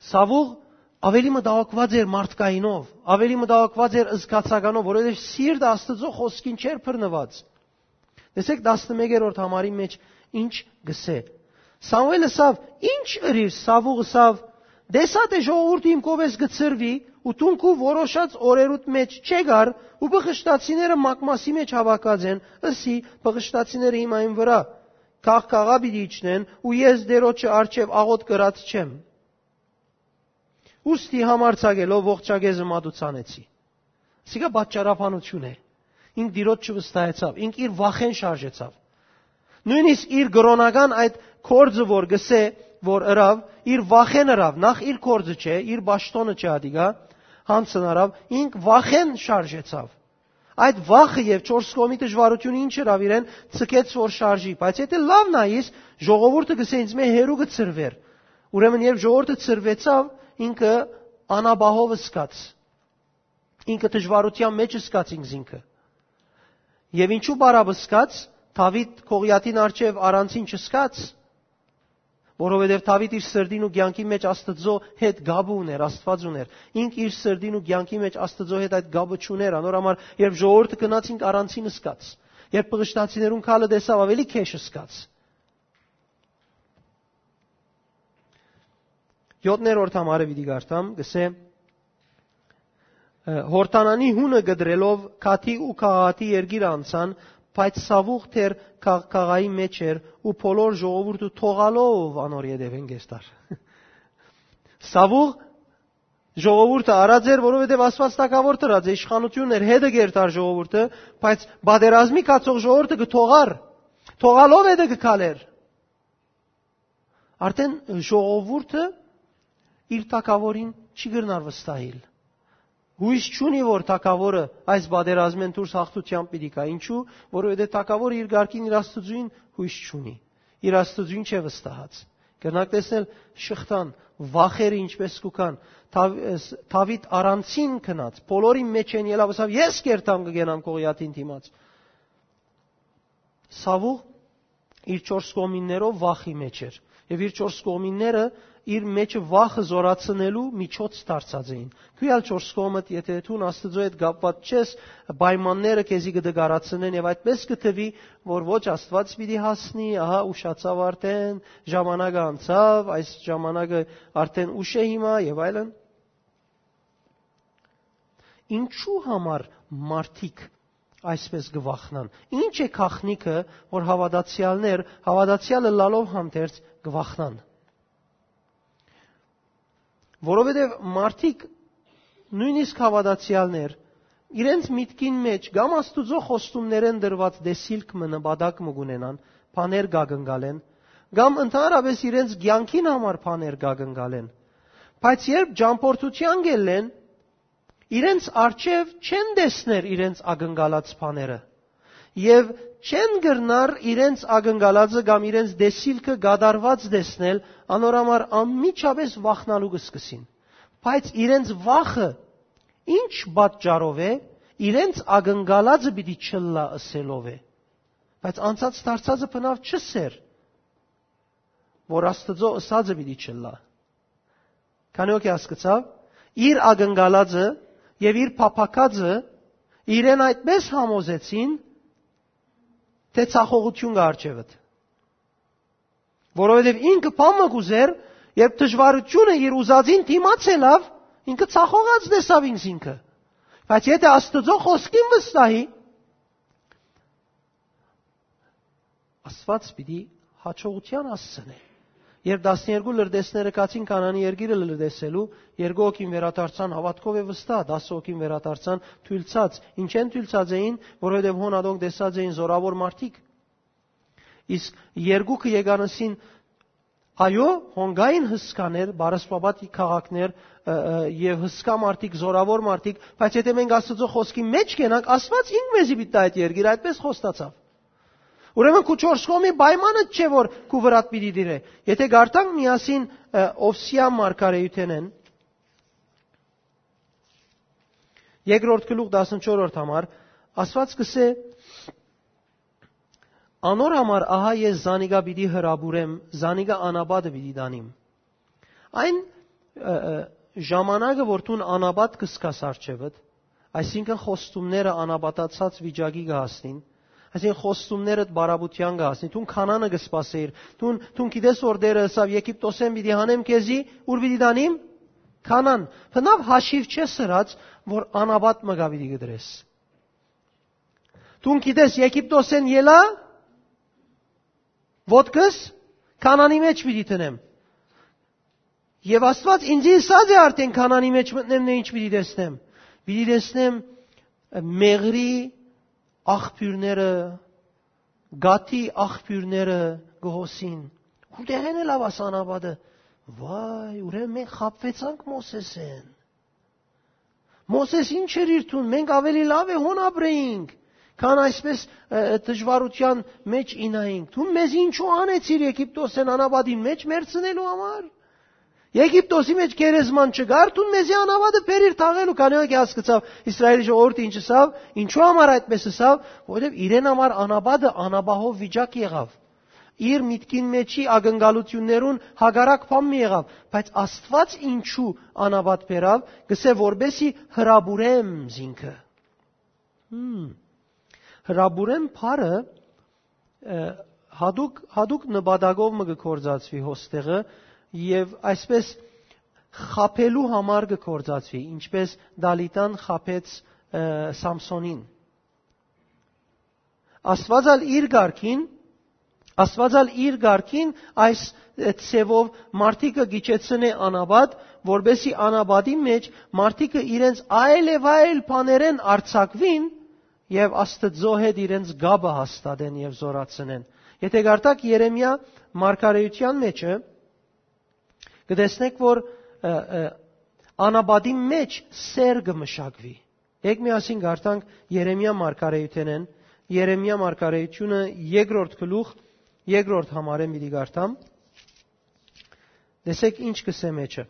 Սաւուղ ավելի մտահոգուած էր մարդկայինով, ավելի մտահոգուած էր զգացականով, որովհետեւ սիրտը Աստուծոյ խօսքին չէր բռնուած։ Տեսեք, տասնմեկերորդ համարի մէջ ինչ կ'ըսէ։ Սամուէլ ըսաւ. «Ի՞նչ ըրիր»։ Սաւուղ ըսաւ. «Տեսայ թէ ժողովուրդը իմ կողմէս կը ցրուի, ու դուն քու որոշած օրերուդ մէջ չեկար, ու բղշտացիները մակմասի մէջ հաւաքած են, ըսի, բղշտացիները հիմա իմ վրայ կաղ կաղա պիտի իջնեն, ու ես Տիրոջը առջեւ աղօթք կրած չեմ։ Ուստի համարձակելով ողջակեզը մատուցանեցի։ Սիկա պատճառաբանություն է։ Ինք Տիրոջ չվստահեցաւ, ինք իր վախէն շարժեցաւ։ Նոյնիսկ իր կրօնական այդ գործը որ գսե, որ ըրաւ, իր վախէն ըրաւ, նախ իր գործը չէ, իր պաշտոնը չէ ատիկա, հանցն առաւ, ինք վախէն շարժեցաւ։ Այդ վախը եւ չորս կողմի դժվարությունը ինչ ըրավ իրեն, ցկեց որ շարժի։ Բայց եթե լաւ նայիս, ժողովուրդը գսե ինձ մէ հերու կը ցրուէր։ Ուրեմն երբ ժողովուրդը ցրուեցաւ, ինքը անապահով ըսկաց, ինքը դժվարութեան մէջ ըսկաց ինքզինքը։ Եւ ինչու բարապ ըսկաց, Դաւիթ Գողիաթին առջեւ առանցին չըսկաց, որովհետեւ Դաւիթ իր սրտին ու կեանքի մէջ Աստծո հետ կապը ունէր, Աստուած ունէր։ Ինք իր սրտին ու կեանքի մէջ Աստծո հետ այդ կապը չունէր, անոր համար երբ ժողովուրդը գնաց, ինք առանցին ըսկաց։ Երբ բղշտացիներուն քալը տեսաւ, ավելի քեշ ըսկաց։ Յոթներորդ համարը պիտի կարդամ, գսե. Յորդանանի հունը կտրելով Գաթի ու Գաղատի երկիրը անցան, բայց Սաւուղ դեռ Գաղ-, Գաղայի մէջ էր ու բոլոր ժողովուրդը թողալով անոր ետևէն կերտար։ Սաւուղ ժողովուրդը առած էր, որովհետեւ Աստուած թագաւոր դրած է, իշխանությունն էր, հետը կերտար ժողովուրդը, բայց պատերազմի գացող ժողովուրդը կը թողար, թողալով հետը կը քալեր։ Արդեն ժողովուրդը իր թագաւորին չի կրնար վստահիլ։ Յոյս չունի, որ թագաւորը այս պատերազմէն դուրս հաղթութեամբ պիտի գայ։ Ինչու՞, որովհետեւ թագաւորը իր կարգին իր Աստուծոյն յոյս չունի։ Իր Աստուծոյն չէ վստահած։ Կրնաք տեսնել շղթան, վախերը ինչպես կու գան։ Դաv-, ս-, Դաւիթ առանցին գնաց, բոլորին մէջ են ելաւ, ասաւ, «Ես կերտամ կը գենամ Գողիաթին դիմաց»։ Սաւուղ իր չորս կողմիններով վախի մէջ էր։ Եւ իր չորս կողմինները իր մէջը վախը զորացնելու միջոց դարձած էին։ Քու ալ չորս կողմդ, եթե դուն Աստծո հետ կապված չես, պայմանները քեզի կը դգարացնեն եւ այդպես կը թվի, որ ոչ Աստուած պիտի հասնի, ահա ուշացաւ արդեն, ժամանակը անցաւ, այս ժամանակը արդեն ուշ է հիմա եւ այլն։ Ինչու համար մարդիկ այսպես կը վախնան։ Ինչ է գաղտնիքը, որ հաւատացեալներ, հաւատացեալ ըլլալով հանդերձ կը վախնան։ Որովհետեւ մարդիկ, նոյնիսկ հաւատացեալներ, իրենց միտքին մէջ կամ Աստուծոյ խոստումներէն դրուած տեսիլք մը, նպատակ մը կունենան, բաներ կակնկալեն, կամ ընդհանրապէս իրենց կեանքին համար բաներ կակնկալեն։ Բայց երբ ճամբորդութեան կ'ելլեն, իրենց առջեւ չեն տեսներ իրենց ակնկալած բաները եւ չեն կրնար իրենց ակնկալածը կամ իրենց տեսիլքը կատարուած տեսնել, անոր համար անմիջապէս վախնալու կը սկսին։ Բայց իրենց վախը ինչ պատճառով է, իրենց ակնկալածը պիտի չըլլայ ըսելով է։ Բայց անցած դարձածը բնաւ չըսեր, որ Աստուծոյ ըսածը պիտի չըլլայ։ Քանի՞ հոգի հասկցաւ, իր ակնկալածը եւ իր փափաքածը իրեն այդպես համոզեցին, թէ ցախողութիւն կը առջեւդ։ Որովհետեւ ինքը բան մը կ'ուզեր, երբ դժվարութիւնը իր ուզածին դիմաց ելաւ, ինքը ցախողած տեսաւ ինքզինքը։ Բայց եթե Աստուծոյ խօսքին վստահի, Աստուած պիտի յաջողութեան հասցնէ։ Երբ տասներկու լրտեսները գացին Քանանի երկիրը լրտեսելու, երկու հոգին վերադարձան, հաւատքով է վստահ, տասը հոգին վերադարձան թոյլցած։ Ինչեն թոյլցած էին, որովհետեւ հոն ատոնք տեսած էին զորաւոր մարդիկ։ Իսկ երկուքը եկան ըսին, այո, հոն կային հսկաներ, բառասպաբատ քաղաքներ, ը, ը, եւ հսկայ մարդիկ, զորաւոր մարդիկ, բայց եթե մենք Աստուծոյ խօսքի մէջ կենանք, Աստուած ինք մեզի պիտի տայ այդ երկիրը, այդպես խոստացաւ։ Ուրեմն քու չորս կողմի պայմանը չէ, որ քու վրադ պիտի դիրէ։ Եթե կարդանք միասին, ը, Ովսեայ մարգարեութենէն, երկրորդ գլուխ, տասնչորսերորդ համար, Աստուած կ'ըսէ. «Անոր համար ահա ես զանիկա պիտի հրապուրեմ, զանիկա անապատը պիտի տանիմ»։ Այն, ը, ը, ժամանակը, որ դուն անապատ կ'սկաս առջեւդ, այսինքն խոստումները անապատացած վիճակի կը հասնին, այսինքն խոստումներդ բարապութեան կը հասնին, դուն Քանանը կը սպասէիր, դուն, դուն գիտես, որ Տէրը ըսաւ, «Եգիպտոսէն պիտի հանեմ քեզի, ուր պիտի տանիմ»։ Քանան, բնաւ հաշիւ չես ըրած, որ անապատ մը գա պիտի կտրես։ Դուն գիտես, Եգիպտոսէն ելայ, ոտքս Քանանի մեջ պիտի դնեմ։ Եւ Աստուած ինձի ըսած է արդէն, Քանանի մեջ մտնեմ, նե ինչ պիտի տեսնեմ։ Պիտի տեսնեմ, ը, մեղրի աղբիւրները, գաթի աղբիւրները կը հոսին։ Ուրտեղէն ելաւ աս անապատը։ Վայ, ուրեմն մենք խաբուեցանք Մովսէսէն։ Մովսէս ինչ էր իր թուն, մենք աւելի լաւ է հոն ապրեինք, քան այսպես, ը, ը, դժուարութեան մեջ ինայինք։ Դուն մեզ ինչու անեցիր Եգիպտոսէն անապատին մեջ մեռցնելու համար։ Եգիպտոսի մեջ գերեզման չկար, դուն մեզի անապատը բերիր թաղելու, քանի որ հասկցաւ Իսրայէլի ժողովուրդը ինչ ըսաւ, ինչու համար այդպես ըսաւ, որովհետեւ իրեն համար անապատը անապահով վիճակ եղաւ։ Իր միտքին մեջի ակնկալութիւններուն հակառակ բան մը եղաւ, բայց Աստուած ինչու անապատ բերաւ, կսե որպեսի հրապուրեմ զինքը։ Հմ։ Հրապուրեմ բառը, ը, հատուկ, հատուկ նպատակով մը կը գործածուի հոստեղը եւ այսպես խաբելու համար կը գործածուի, ինչպես Դալիտան խաբեց, ը, Սամսոնին։ Աստուած ալ իր կարգին, Աստուած ալ իր կարգին այս, ը, ձևով մարդիկը գիջեցնէ անապատ, որպեսի անապատի մեջ մարդիկը իրենց այլ եւ այլ բաներէն արձակուին եւ Աստուծոյ հետ իրենց կապը հաստատեն եւ զորացնեն։ Եթե կարդաք Երեմիա մարգարեութեան մեջը, կը տեսնեք, որ, ը, ը, անապատի մեջ սէր կը մշակուի։ Եք միասին կարդանք Երեմիա մարգարեութենէն, Երեմիա մարգարեութիւնը երկրորդ գլուխ, երկրորդ համարէն պիտի կարդամ։ Տեսեք ինչ կսե մեջը։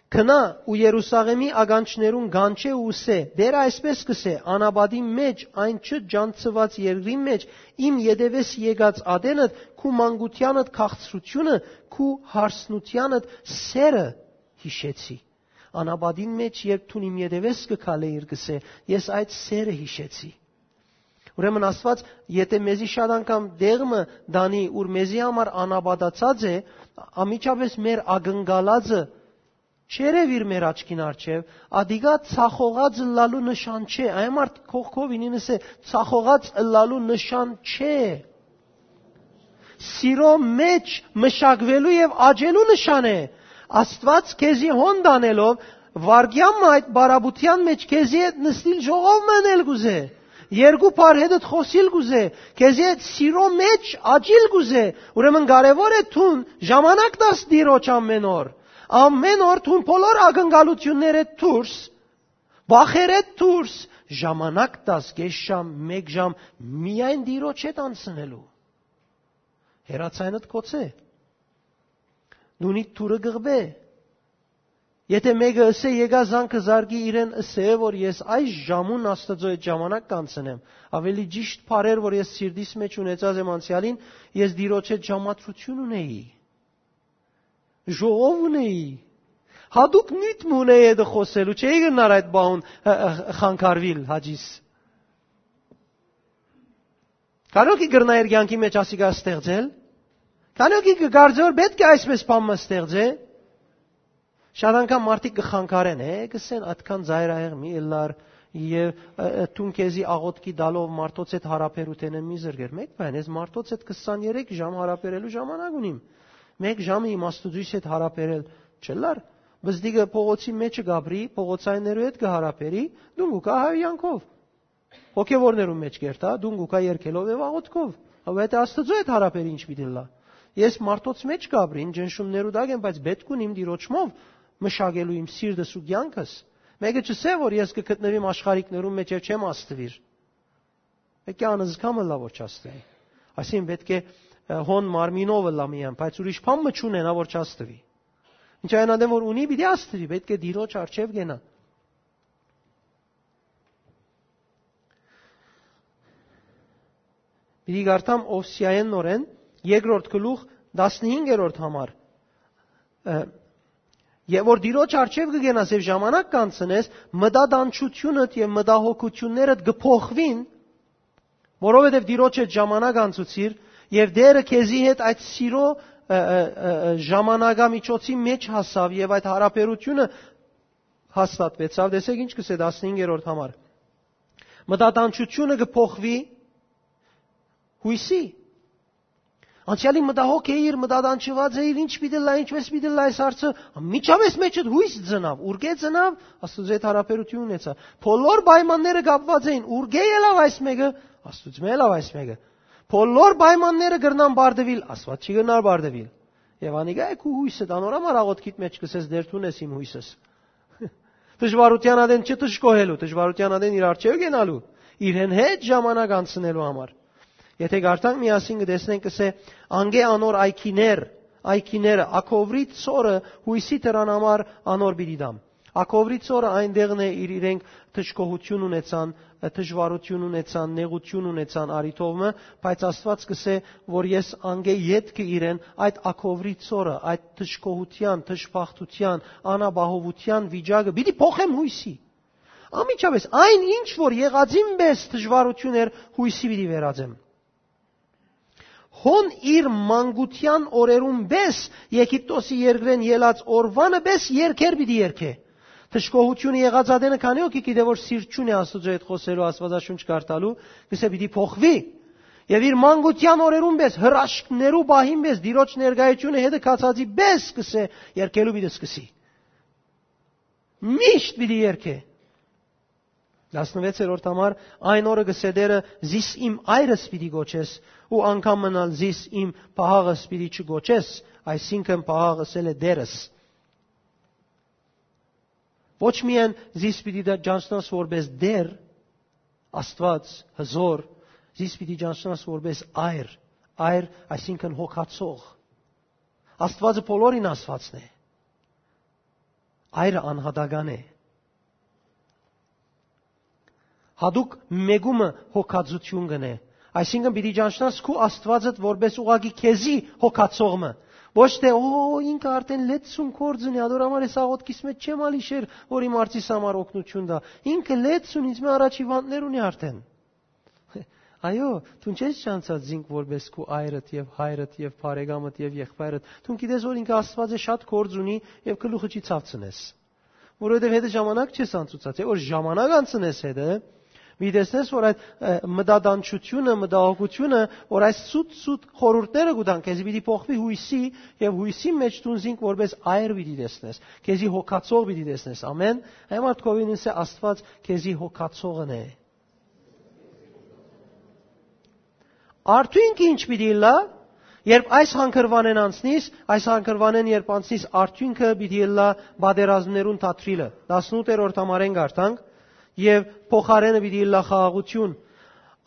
«Գնա ու Երուսաղէմի ականջներուն կանչէ ու ըսէ. "Տէրը այսպես կսէ. անապատի մեջ, այն չճանչցուած երկրին մեջ, իմ ետևէս եկած ատենդ, քու մանկութեանդ քաղցրութիւնը, քու հարսնութեանդ սէրը յիշեցի"։ Անապատին մեջ, երբ դուն իմ ետևէս կը քալէիր, կսէ, ես այդ սէրը յիշեցի։ Ուրեմն Աստուած, եթէ մեզի շատ անգամ տեղ մը տանի, ուր մեզի համար անապատացած է, անմիջապէս մեր ակնկալածը չերեւիր մեր աչքին առջեւ, ատիկա ցախողած ըլլալու նշան չէ։ Այն մարդ կողքովին ինս է, ցախողած ըլլալու նշան չէ։ Սիրո մեջ մշակուելու եւ աճելու նշան է։ Աստուած քեզի հոն տանելով, վարկեան մը այդ բարապետութեան մեջ քեզի հետ նստիլ ժողով մը ընել կուզէ, երկու բառ հետդ խօսիլ կուզէ, քեզի հետ սիրո մեջ աճիլ կուզէ, ուրեմն կարեւոր է դուն ժամանակ տաս Տիրոջ ամէն օր, ամէն օր դուն բոլոր ակնկալութիւններէ դուրս, վախերէ դուրս, ժամանակ տաս կէս ժամ, մէկ ժամ միայն Տիրոջ հետ անցնելու։ Հեռացայնդ կոցէ, դունիդ դուռը կղբէ։ Եթէ մէկը ըսէ, եկայ զանգը զարկի իրեն, ըսէ, որ ես այս ժամուն Աստուծոյ հետ ժամանակ կանցնեմ, ավելի ճիշդ բառեր, որ ես սիրտիս մեջ ունեցած եմ անցեալին, ես Տիրոջ հետ ժամադրութիւն ունեի, ժողով ունեի, հատուկ նիւթ մը ունեի հետը խօսելու, չէի գնար այդ բաուն, ը, ը, խանգարուիլ հաճիս։ Քանի՞ օքի կրնայ իր կյանքի մեջ ասիկա ստեղծել։ Քանի՞ օքի կը կարծէ, որ պէտք է այսպես բան մը ստեղծէ։ Շատ անգամ մարդիկ կը խանգարեն, է, կսեն, «Ատքան ծայրահեղ մի ըլլար եւ, ը, ը, դուն քեզի աղօթքի տալով մարդոց հետ հարաբերութենէն մի զրկեր»։ Մէկ բան, ես մարդոց հետ քսանեթերթ ժամ հարաբերելու ժամանակ ունիմ։ Մէկ ժամը իմ Աստուծոյս հետ հարաբերել չըլլար։ Բզդիկը փողոցի մեջը կապրի, փողոցայիններու հետ կը հարաբերի, դուն կու կայ հայհոյանքով։ Հոգեվորներուն մեջ կերթայ, դուն կու կայ երկելով եւ աղօթքով։ Հա, այդ Աստուծոյ հետ հարաբեր ինչ պիտի ըլլայ։ Ես մարդոց մեջ կապրին, ճնշումներու տակ եմ, բայց պէտք ունիմ Տիրոջմով մշակելու իմ սիրտս ու կյանքս։ Մէկը չսէ, որ ես կը գտնուիմ աշխարհիկներուն մեջ եւ չեմ աստուիր։ Պէտք է անզգամ ըլլայ, որ չաստուի։ Այսինքն պէտք է, ը, հոն մարմինով ըլլայ միայն, բայց ուրիշ բան մը չունենայ, որ չաստուի։ Ինչ այն ատեն, որ ունի, պիտի աստուի, պէտք է Տիրոջ առջեւ գնայ։ Պիտի կարդամ Ովսիայէն նորէն, երկրորդ գլուխ, տասնհինգերորդ համար։ Ը, եւ որ Տիրոջ առջեւ կը գնաս եւ ժամանակ կանցնես, մտատանջութիւնդ եւ մտահոգութիւններդ կը փոխուին, որովհետեւ Տիրոջ հետ ժամանակ անցուցիր, եւ Տէրը քեզի հետ այդ սիրո ը, ը, ը, ը, ժամանակամիջոցի մէջ հասաւ եւ այդ յարաբերութիւնը հաստատուեցաւ։ Տեսեք ինչ կ'ըսէ տասնհինգերորդ համար. «Մտատանջութիւնը կը փոխուի յոյսի»։ Անցեալին մտահոգ էիր, մտատանջուած էիր, ինչ պիտի ըլլայ, ինչպէս պիտի ըլլայ այս հարցը, անմիջապէս մէջդ յոյս ծնաւ, ուրկէ ծնաւ, Աստուծոյ հետ յարաբերութիւն ունեցայ։ Բոլոր պայմանները կապուած էին, ուրկէ ելաւ այս մէկը, Աստուծմէ ելաւ այս մէկը։ Բոլոր պայմանները կրնան պարտուիլ, Աստուած չի կրնար պարտուիլ։ Եւ անիկա է քու յոյսը, անոր համար աղօթքիդ մէջ կ'ըսես. «Տէր, դուն ես իմ յոյսս»։ Դժուարութեան ատեն չդժկոհելու, դժուարութեան ատեն իր առջեւ կենալու, իրեն հետ ժամանակ անցնելու համար։ Եթէ կարդանք, միասին կը տեսնենք, կ'ըսէ. «Անկէ անոր այգիներ, այգիները, ակովրի ցորը յոյսի դրան համար անոր պիտի տամ»։ Ակովրի ցորը այն տեղն է, իր իրենք դժկոհութիւն ունեցան, դժուարութիւն ունեցան, նեղութիւն ունեցան առիթով մը, բայց Աստուած կ'ըսէ, որ ես անկէ ետքը իրեն այդ ակովրի ցորը, այդ դժկոհութեան, դժբախտութեան, անապահովութեան վիճակը պիտի փոխեմ յոյսի։ Անմիջապէս այն ինչ որ եղածին պէս դժուարութիւն էր, յոյսի պիտի վերածեմ։ Հոն իր մանկութեան օրերուն պէս, Եգիպտոսի երկրէն ելած օրուանը պէս երկեր պիտի երկէ։ Դժկոհութիւնը եղած ատենը քանի՞ հոգի գիտէ որ սիրտ չունի Աստուծոյ հետ խօսելու, Աստուածաշունչ կարդալու, կ'ըսէ պիտի փոխուի։ Եւ իր մանկութեան օրերուն պէս, հրաշքներու պահին պէս, Տիրոջ ներկայութիւնը հետը գացածի պէս, կ'ըսէ, երկելու պիտի սկսի։ Միշտ պիտի երկէ։ Տասնվեցերորդ համար. «Այն օրը, կ'ըսէ Տէրը, զիս իմ այրս պիտի կոչես ու անգամ մըն ալ զիս իմ պահաղս պիտի չկոչես», այսինքն պահաղ ըսել է Տէրս։ Ոչ միայն զիս պիտի դա ճանչնաս որպես Տէր, Աստուած, հզոր, զիս պիտի ճանչնաս որպես այր, այր, այսինքն հոգացող։ Աստուածը բոլորին Աստուածն է։ Այրը անհատական է։ Հատուկ մեկումը հոգածութիւն կ'ընէ։ Այսինքն պիտի ճանչնաս քու Աստուածդ որպես ուղղակի քեզի հոգացող մը։ Ոչ թէ, «Օ, ինքը արդեն լեցուն կորձ ունի, ադոր համար ես աղոթքիս մեջ չեմ ալ իշեր, որ իմ արծիս համար օգնություն տայ։ Ինքը լեցուն, ինձ մը առաջի վանտներ ունի արդեն»։ Այո, դուն չես ճանչած զինք որպես քու այրդ եւ հայրդ եւ բարեկամդ եւ եղբայրդ։ Դուն գիտես որ ինքը Աստուած է, շատ կորձ ունի եւ գլուխը չի ցաւցնես։ Որովհետեւ հետը ժամանակ չես անցուցած, է, որ ժամանակ անցնես հետը, մի տեսնես որ այդ, ը, մտատանջութիւնը, մտահոգութիւնը, որ այս սուտ-սուտ խորհուրդները կու տան, քեզի պիտի փոխուի յոյսի, եւ յոյսի մեջ դուն զինք որպես այր պիտի տեսնես, քեզի հոգացող պիտի տեսնես, ամեն, այն մարդկովին ըսէ Աստուած քեզի հոգացողն է։ Արդյունքը ինչ պիտի ըլլայ, երբ այս հանգրուանէն անցնիս, այս հանգրուանէն երբ անցնիս, արդյունքը պիտի ըլլայ պատերազմներուն թատրիլը։ Տասնութերորդ համարէն կարդանք, եւ փոխարէնը պիտի ըլլայ խաղաղութիւն։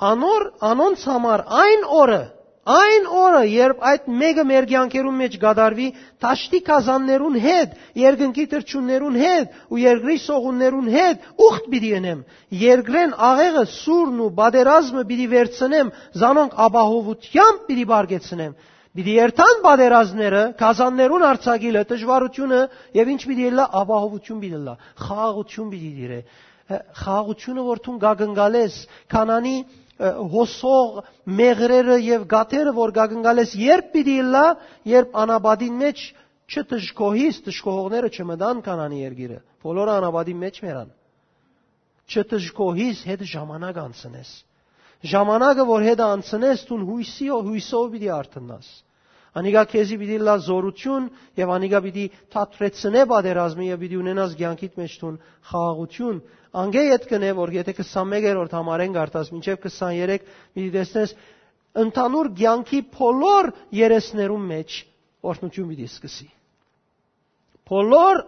Անոր, անոնց համար այն օրը, այն օրը, երբ այդ մեկը մեր կեանքերուն մեջ կատարուի, դաշտի գազաններուն հետ, երկնքի թռչուններուն հետ ու երկրի սողուններուն հետ ուխտ պիտի ընեմ։ Երկրէն աղեղը, սուրն ու պատերազմը պիտի վերցնեմ, զանոնք ապահովութեամբ պիտի պարգեցնեմ։ Պիտի երթան պատերազմները, գազաններուն արձակիլը, դժուարութիւնը, եւ ինչ պիտի ըլլայ, ապահովութիւն պիտի ըլլայ, խաղաղութիւն պիտի տիրէ։ Ը, խաղաղութիւնը, որ դուն կակնկալես, Քանանի, ը, հոսող մեղրերը եւ գաթերը, որ կակնկալես, երբ պիտի ըլլայ, երբ անապատին մեջ չդժկոհիս, դժկոհողները չմտան Քանանի երկիրը, բոլորը անապատին մեջ մեռան։ Չդժկոհիս, հետ ժամանակ անցնես։ Ժամանակը, որ հետը անցնես, դուն յոյսի, յոյսով պիտի արթնաս։ Անիկա քեզի պիտի լա զորութիւն եւ անիկա պիտի թատրեցնէ պատերազմը եւ պիտի ունենաս կեանքիդ մեջ դուն խաղաղութիուն։ Անկէ յետ կ'ընէ, որ եթէ քսանմեկերորդ համարէն կարդաս մինչեւ քսաներեք, պիտի տեսնես, ընդհանուր կեանքի բոլոր երեսներուն մեջ օրհնութիւն պիտի սկսի։ Բոլոր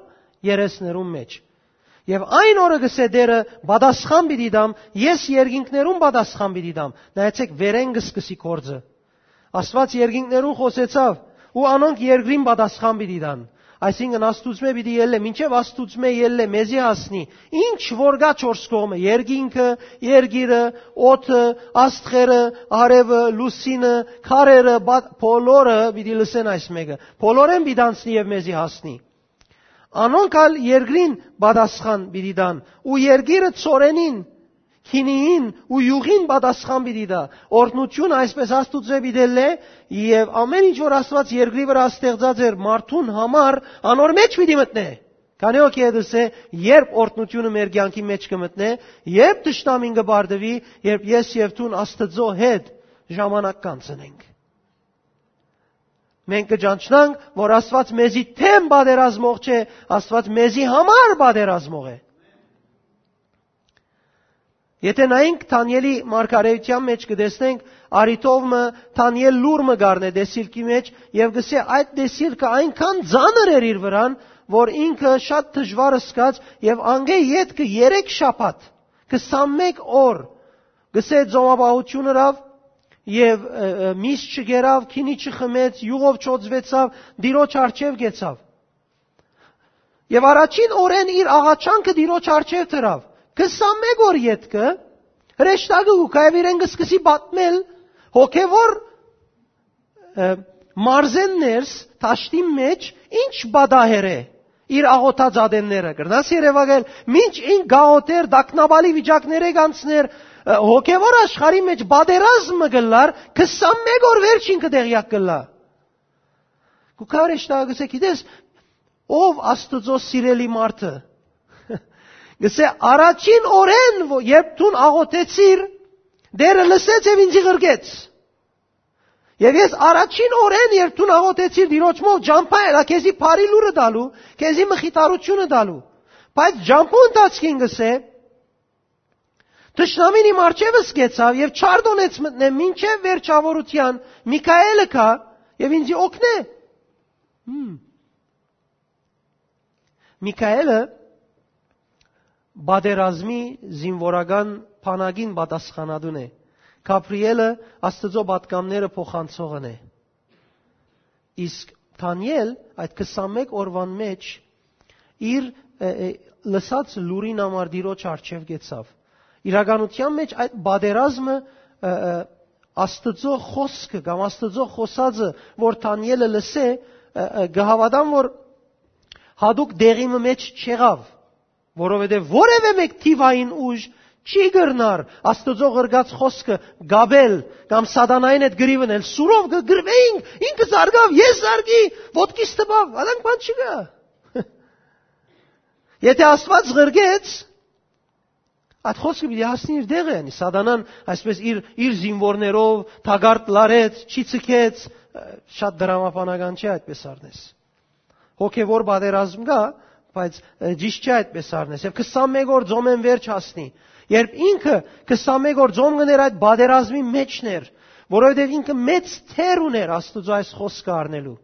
երեսներուն մեջ։ Եւ այն օրը, կ'ըսէ Տէրը, պատասխան պիտի տամ, ես երկինքներուն պատասխան պիտի տամ։ Նայեցեք, վերէն կը սկսի գործը։ Աստուած երկինքներուն խօսեցաւ, ու անոնք երկրին պատասխան պիտի տան։ Այսինքն, Աստուծմէ պիտի ելլէ, մինչեւ Աստուծմէ ելլէ, մեզի հասնի։ Ինչ որ կայ չորս կողմը, երկինքը, երկիրը, օդը, աստղերը, արեւը, լուսինը, քարերը, բա-, բոլորը պիտի լսեն այս մեկը։ Բոլորէն պիտի անցնի եւ մեզի հասնի։ Անոնք ալ երկրին պատասխան պիտի տան, ու երկիրը ցորենին, քինիին ու իւղին պատասխան պիտի տայ։ Օրհնութիւնը այսպէս Աստուծոյ պիտի ըլլայ, եւ ամէն ինչ որ Աստուած երկրի վրայ ստեղծած էր մարդուն համար, անոր մէջ պիտի մտնէ։ Քանի՞ հոգի է դսե, երբ օրհնութիւնը մեր կեանքի մէջ կը մտնէ, երբ թշնամին կը պարտուի, երբ ես եւ դուն Աստուծոյ հետ ժամանակ կանցնենք։ Մենք կը ճանչնանք, որ Աստուած մեզի դէմ պատերազմող չէ, Աստուած մեզի համար պատերազմող է։ Եթե նայենք Դանիէլի մարգարէութեան մէջ, կը տեսնենք, արիթով մը Դանիէլ լուր մը կ'առնէ տեսիլքի մէջ եւ կ'ըսէ, այդ տեսիլքը այնքան ծանր էր իր վրան, որ ինքը շատ դժուար զգաց եւ անգէ ետքը երեք շաբաթ, քսանմէկ օր, կ'ըսէ, ծոմապահութիւն ըրաւ եւ, ը, ը, միս չգերաւ, քինի չխմեց, իւղով չօծուեցաւ, Տիրոջ առջեւ գեցաւ։ Եւ առաջին օրէն իր աղաչանքը Տիրոջ առջեւ դրաւ։ Քսանմէկ օր ետքը հրեշտակը կու գայ եւ իրեն կը սկսի պատմել հոգեվոր, ը, մարզէն ներս, դաշտին մէջ, ինչ պատահեր է իր աղոթած ատենները։ Կրնաս երեւակայել, մինչ ինք գաղութեր, տագնապալի վիճակներէ կանցներ, ը, հոգեվոր աշխարհի մէջ պատերազմ մը կ'ըլլար, քսանմէկ օր վերջ ինքը տեղյակ կ'ըլլայ։ Կու գայ հրեշտակը, կ'ըսէ, գիտես, ով Աստուծոյ սիրելի մարդը։ Կ'ըսէ, առաջին օրէն, ո-, երբ դուն աղոթեցիր, Տէրը լսեց եւ ինձի ղրկեց։ Եւ ես առաջին օրէն, երբ դուն աղոթեցիր Տիրոջմով, ճամբայ ելայ քեզի բարի լուրը տալու, քեզի մխիթարութիւնը տալու։ Բայց ճամբու ընթացքին, կ'ըսէ, թշնամին իմ առջեւս գեցաւ եւ չարդոնեց մտնեմ մինչեւ վերջաւորութեան, Միքայէլը գայ եւ ինձի օգնէ։ Հմ։ Միքայէլը պատերազմի զինուորական բանակին պատասխանատուն է։ Գաբրիէլը Աստուծոյ պատգամները փոխանցողն է։ Իսկ Դանիէլ այդ քսանմէկ օրուան մէջ իր, ը, ը, լսած լուրին համար Տիրոջ առջեւ գեցաւ։ Իրականութեան մէջ այդ պատերազմը, ը, ը, Աստուծոյ խօսքը կամ Աստուծոյ խօսածը, որ Դանիէլը լսէ, ը, ը, կը հաւատամ, որ յատուկ տեղի մը մէջ չեղաւ, որովհետեւ որեւէ մէկ թիւային ուժ չի կրնար Աստուծոյ ղրկած խօսքը կապել կամ սատանային հետ կռիվ ընել։ Սուրով կը կռուէինք, ինքը զարկաւ, ես զարկի, ոտքիս տպաւ, ադանք բան չկայ։ Եթե Աստուած ղրկեց, այդ խօսքը պիտի հասնի իր տեղը, յանի սատանան այսպես իր, իր զինուորներով թակարդ լարեց, չի ցկեց, շատ դրամաբանական չէ այդպես առնես։ Հոգեվոր պատերազմ կայ, բայց, ը, ճիշդ չէ այդպես առնես։ Եւ քսանմէկ օր ծոմէն վերջ հասնի։ Երբ ինքը քսանմէկ օր ծոմ կ'ընէր, այդ պատերազմի մէջն էր, որովհետեւ ինքը մեծ թեր ունէր Աստուծոյ այս խօսքը առնելու։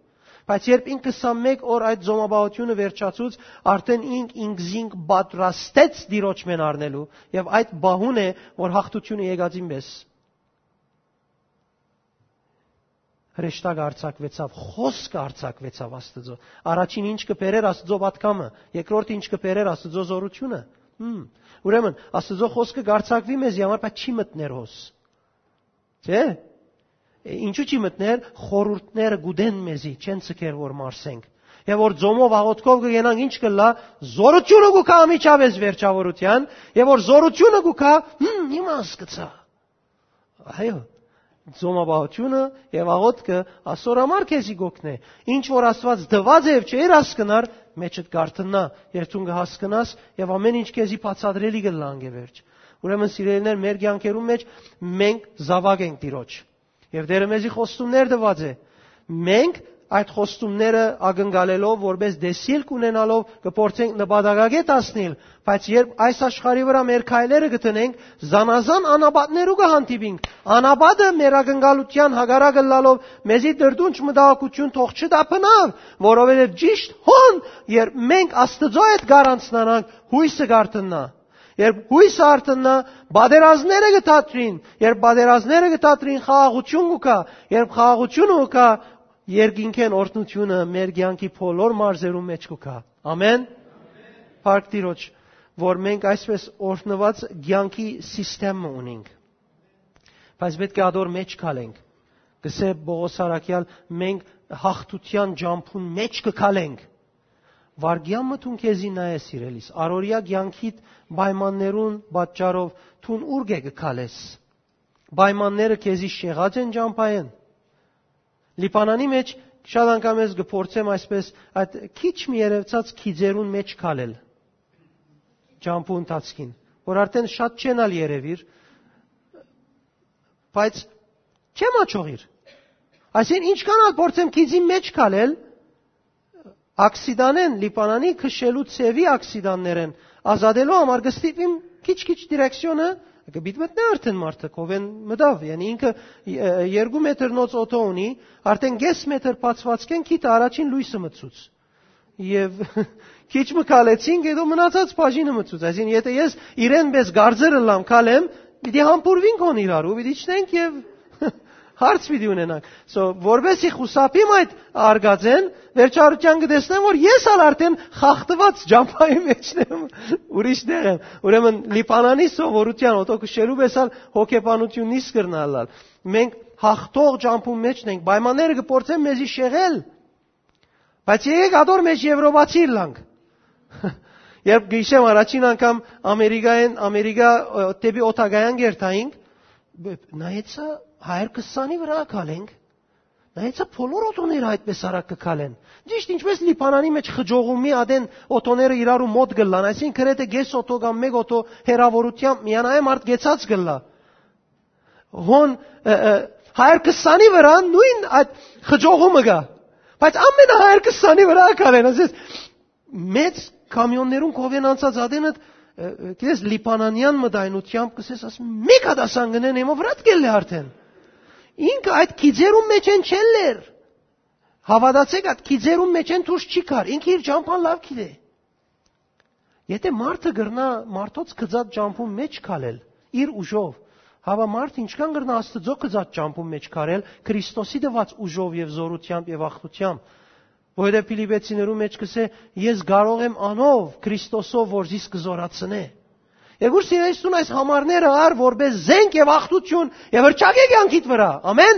Բայց երբ ինքը քսանմէկ օր այդ ծոմապահութիւնը վերջացուց, արդէն ինք ինքզինք պատրաստեց Տիրոջմէն առնելու, եւ այդ պահուն է, որ յաղթութիւնը եկածին պէս հրեշտակ արձակուեցաւ, խօսքը արձակուեցաւ Աստուծոյ։ Առաջին ինչ կը բերէր Աստուծոյ պատգամը, երկրորդ ինչ կը բերէր Աստուծոյ զօրութիւնը։ Հմ։ Ուրեմն, Աստուծոյ խօսքը կարձակուի մեզի համար, բայց չի մտներ հոս։ Չէ՞։ Է, ինչու՞ չի մտներ, խորհուրդները կուտեն մեզի, չեն ցկեր որ մարսենք։ Եւ որ ծոմով աղոթքով կ'ենանք, ինչ կ'ըլլայ, զօրութիւնը կու գայ անմիջապէս վերջաւորութեան, եւ որ զօրութիւնը կու գայ, հմ, հիմա հասկացայ։ Այո, ծոմապահութիւնը եւ աղոթքը ասոր համար քեզի կ'օգնէ։ Ինչ որ Աստուած տուած է եւ չէր հասկնար, մեջդ կ'արթննայ, երբ դուն կը հասկնաս, եւ ամէն ինչ քեզի բացատրելի կ'ըլլայ անկէ վերջ։ Ուրեմն, սիրելիներ, մեր կեանքերուն մէջ մենք զաւակ ենք Տիրոջ։ Եւ Տէրը մեզի խոստումներ տուած է։ Մենք այդ խոստումները ակնկալելով, որպես տեսիլք ունենալով, կը փորձենք նպատակակետ հասնիլ, բայց երբ այս աշխարհի վրայ մեր քայլերը կը դնենք, զանազան անապատներու կը հանդիպինք։ Անապատը մեր ակնկալութեան հակառակ ըլլալով, մեզի տրտունջ մտահոգութիւն թող չտա բնաւ, որովհետեւ ճիշդ հոն, երբ մենք Աստուծոյ հետ կառանցնանանք, յոյսը կ'արթննայ։ Երբ յոյսը արթննայ, պատերազմները կը դադրին, երբ պատերազմները կը դադրին, խաղաղութիւն կու գայ, երբ խաղաղութիւնը կու գայ, երկինքէն օրհնութիւնը մեր կեանքի բոլոր մարզերուն մէջ կու գայ։ Ամէն։ Փառք Տիրոջ, որ մենք այսպես օրհնուած կեանքի սիստեմ մը ունենք։ Բայց պէտք է ադոր մէջ քալենք։ Կ'ըսէ Պողոս Առաքեալ, մենք յաղթութեան ճամբուն մէջ կը քալենք, Վարգեան մը դուն քեզի նայես, սիրելիս, առօրեայ կեանքիդ պայմաններուն պատճառով դուն ուրկէ կը քալես։ Պայմանները քեզի շեղած են ճամբայեն։ Լիբանանի մէջ շատ անգամ ես կը փորձեմ այսպես այդ քիչ մի երևցած քիձերուն մէջ քալել ճամբու ընթացքին, որ արդեն շատ չեն ալ երևիր, բայց չեմ աչողիր։ Այսինքն, ինչքան ալ փորձեմ քիձին մէջ քալել, աքսիդանեն, Լիբանանի քշելու ձեւի աքսիդաններեն ազատելու համար կը ստիպեմ քիչ-քիչ դիրեկցիոնը, կը պիտի մտնէ արդեն մարդը, քովեն մտաւ, յանի ինքը, ը, երկու մետր նոց օդո ունի, արդեն կես մետր բացվածքեն քիթը առաջին լոյսը մտցուց։ Եւ քիչ մը քալեցինք, հետո մնացած բաժինը մտցուց։ Այսինքն, եթե ես իրեն պես գարձեր ըլլամ քալեմ, պիտի համբուրվինք հոն իրար ու պիտի իջնենք եւ հարց պիտի ունենանք։ So, որպեսի խուսափիմ այդ արգածեն, վերջարության կը տեսնեմ, որ ես ալ արդեն խախտված ճամբայի մեջն եմ, ուրիշ տեղ եմ։ Ուրեմն, Լիբանանի սովորության օդո քշելու պես ալ հոգեբանություննից կրնալալ։ Մենք հաղթող ճամբու մեջն ենք, պայմանները կը փորձեն մեզի շեղել, բայց եկեք ադոր մեջ եվրոպացի ըլլանք։ Երբ գիշեմ առաջին անգամ Ամերիկայեն, Ամերիկա, ը, դեպի օդակայան կերթայինք, բ-, նայեցա, Հայր քսանի վրայ քալենք, նայեցա, բոլոր օդոները այդպես արագ կը քալեն։ Ճիշտ ինչպես Լիբանանի մեջ խճողումի ադեն օդոները իրարու մոտ կ'ըլլան, այսինքն, գրեթէ կես օդո կամ մէկ օդո հեռաւորութեամբ միանայ մարդ կեցած կ'ըլլայ։ Հոն, ը, ը, Հայր քսանի վրայ նոյն այդ խճողումը կայ։ Բայց ամենահայր քսանի վրայ քալեն, ասես, մեծ կամիոններուն քովեն անցած ադենը, ը, ը, գիտես, լիբանանեան մտայնությամբ կսես, ասես, մէկ հատ ասան գնեն, եմը վրայ կ'ելլէ արդեն։ Ինքը այդ քիձերուն մեջ են չելլեր։ Հաւատացէք, այդ քիձերուն մեջ են դուրս չի գար։ Ինքը իր ճամբան լաւ գիտէ։ Եթե մարդը կրնայ մարդոց գծած ճամբուն մեջ քալել, իր ուժով, հապա մարդ ինչքան կրնայ Աստուծոյ գծած ճամբուն մեջ քարել, Քրիստոսի տուած ուժով եւ զօրութեամբ եւ աղթութեամբ, որովհետեւ Փիլիպեցիներու մեջ կսէ, «Ես կարող եմ անով, Քրիստոսով, որ զիս կը զօրացնէ»։ Երկուր սիրելիստուն այս համարները առ որպես զենք եւ աղթություն եւ հրճակէ կյանքիդ վրայ։ Ամեն։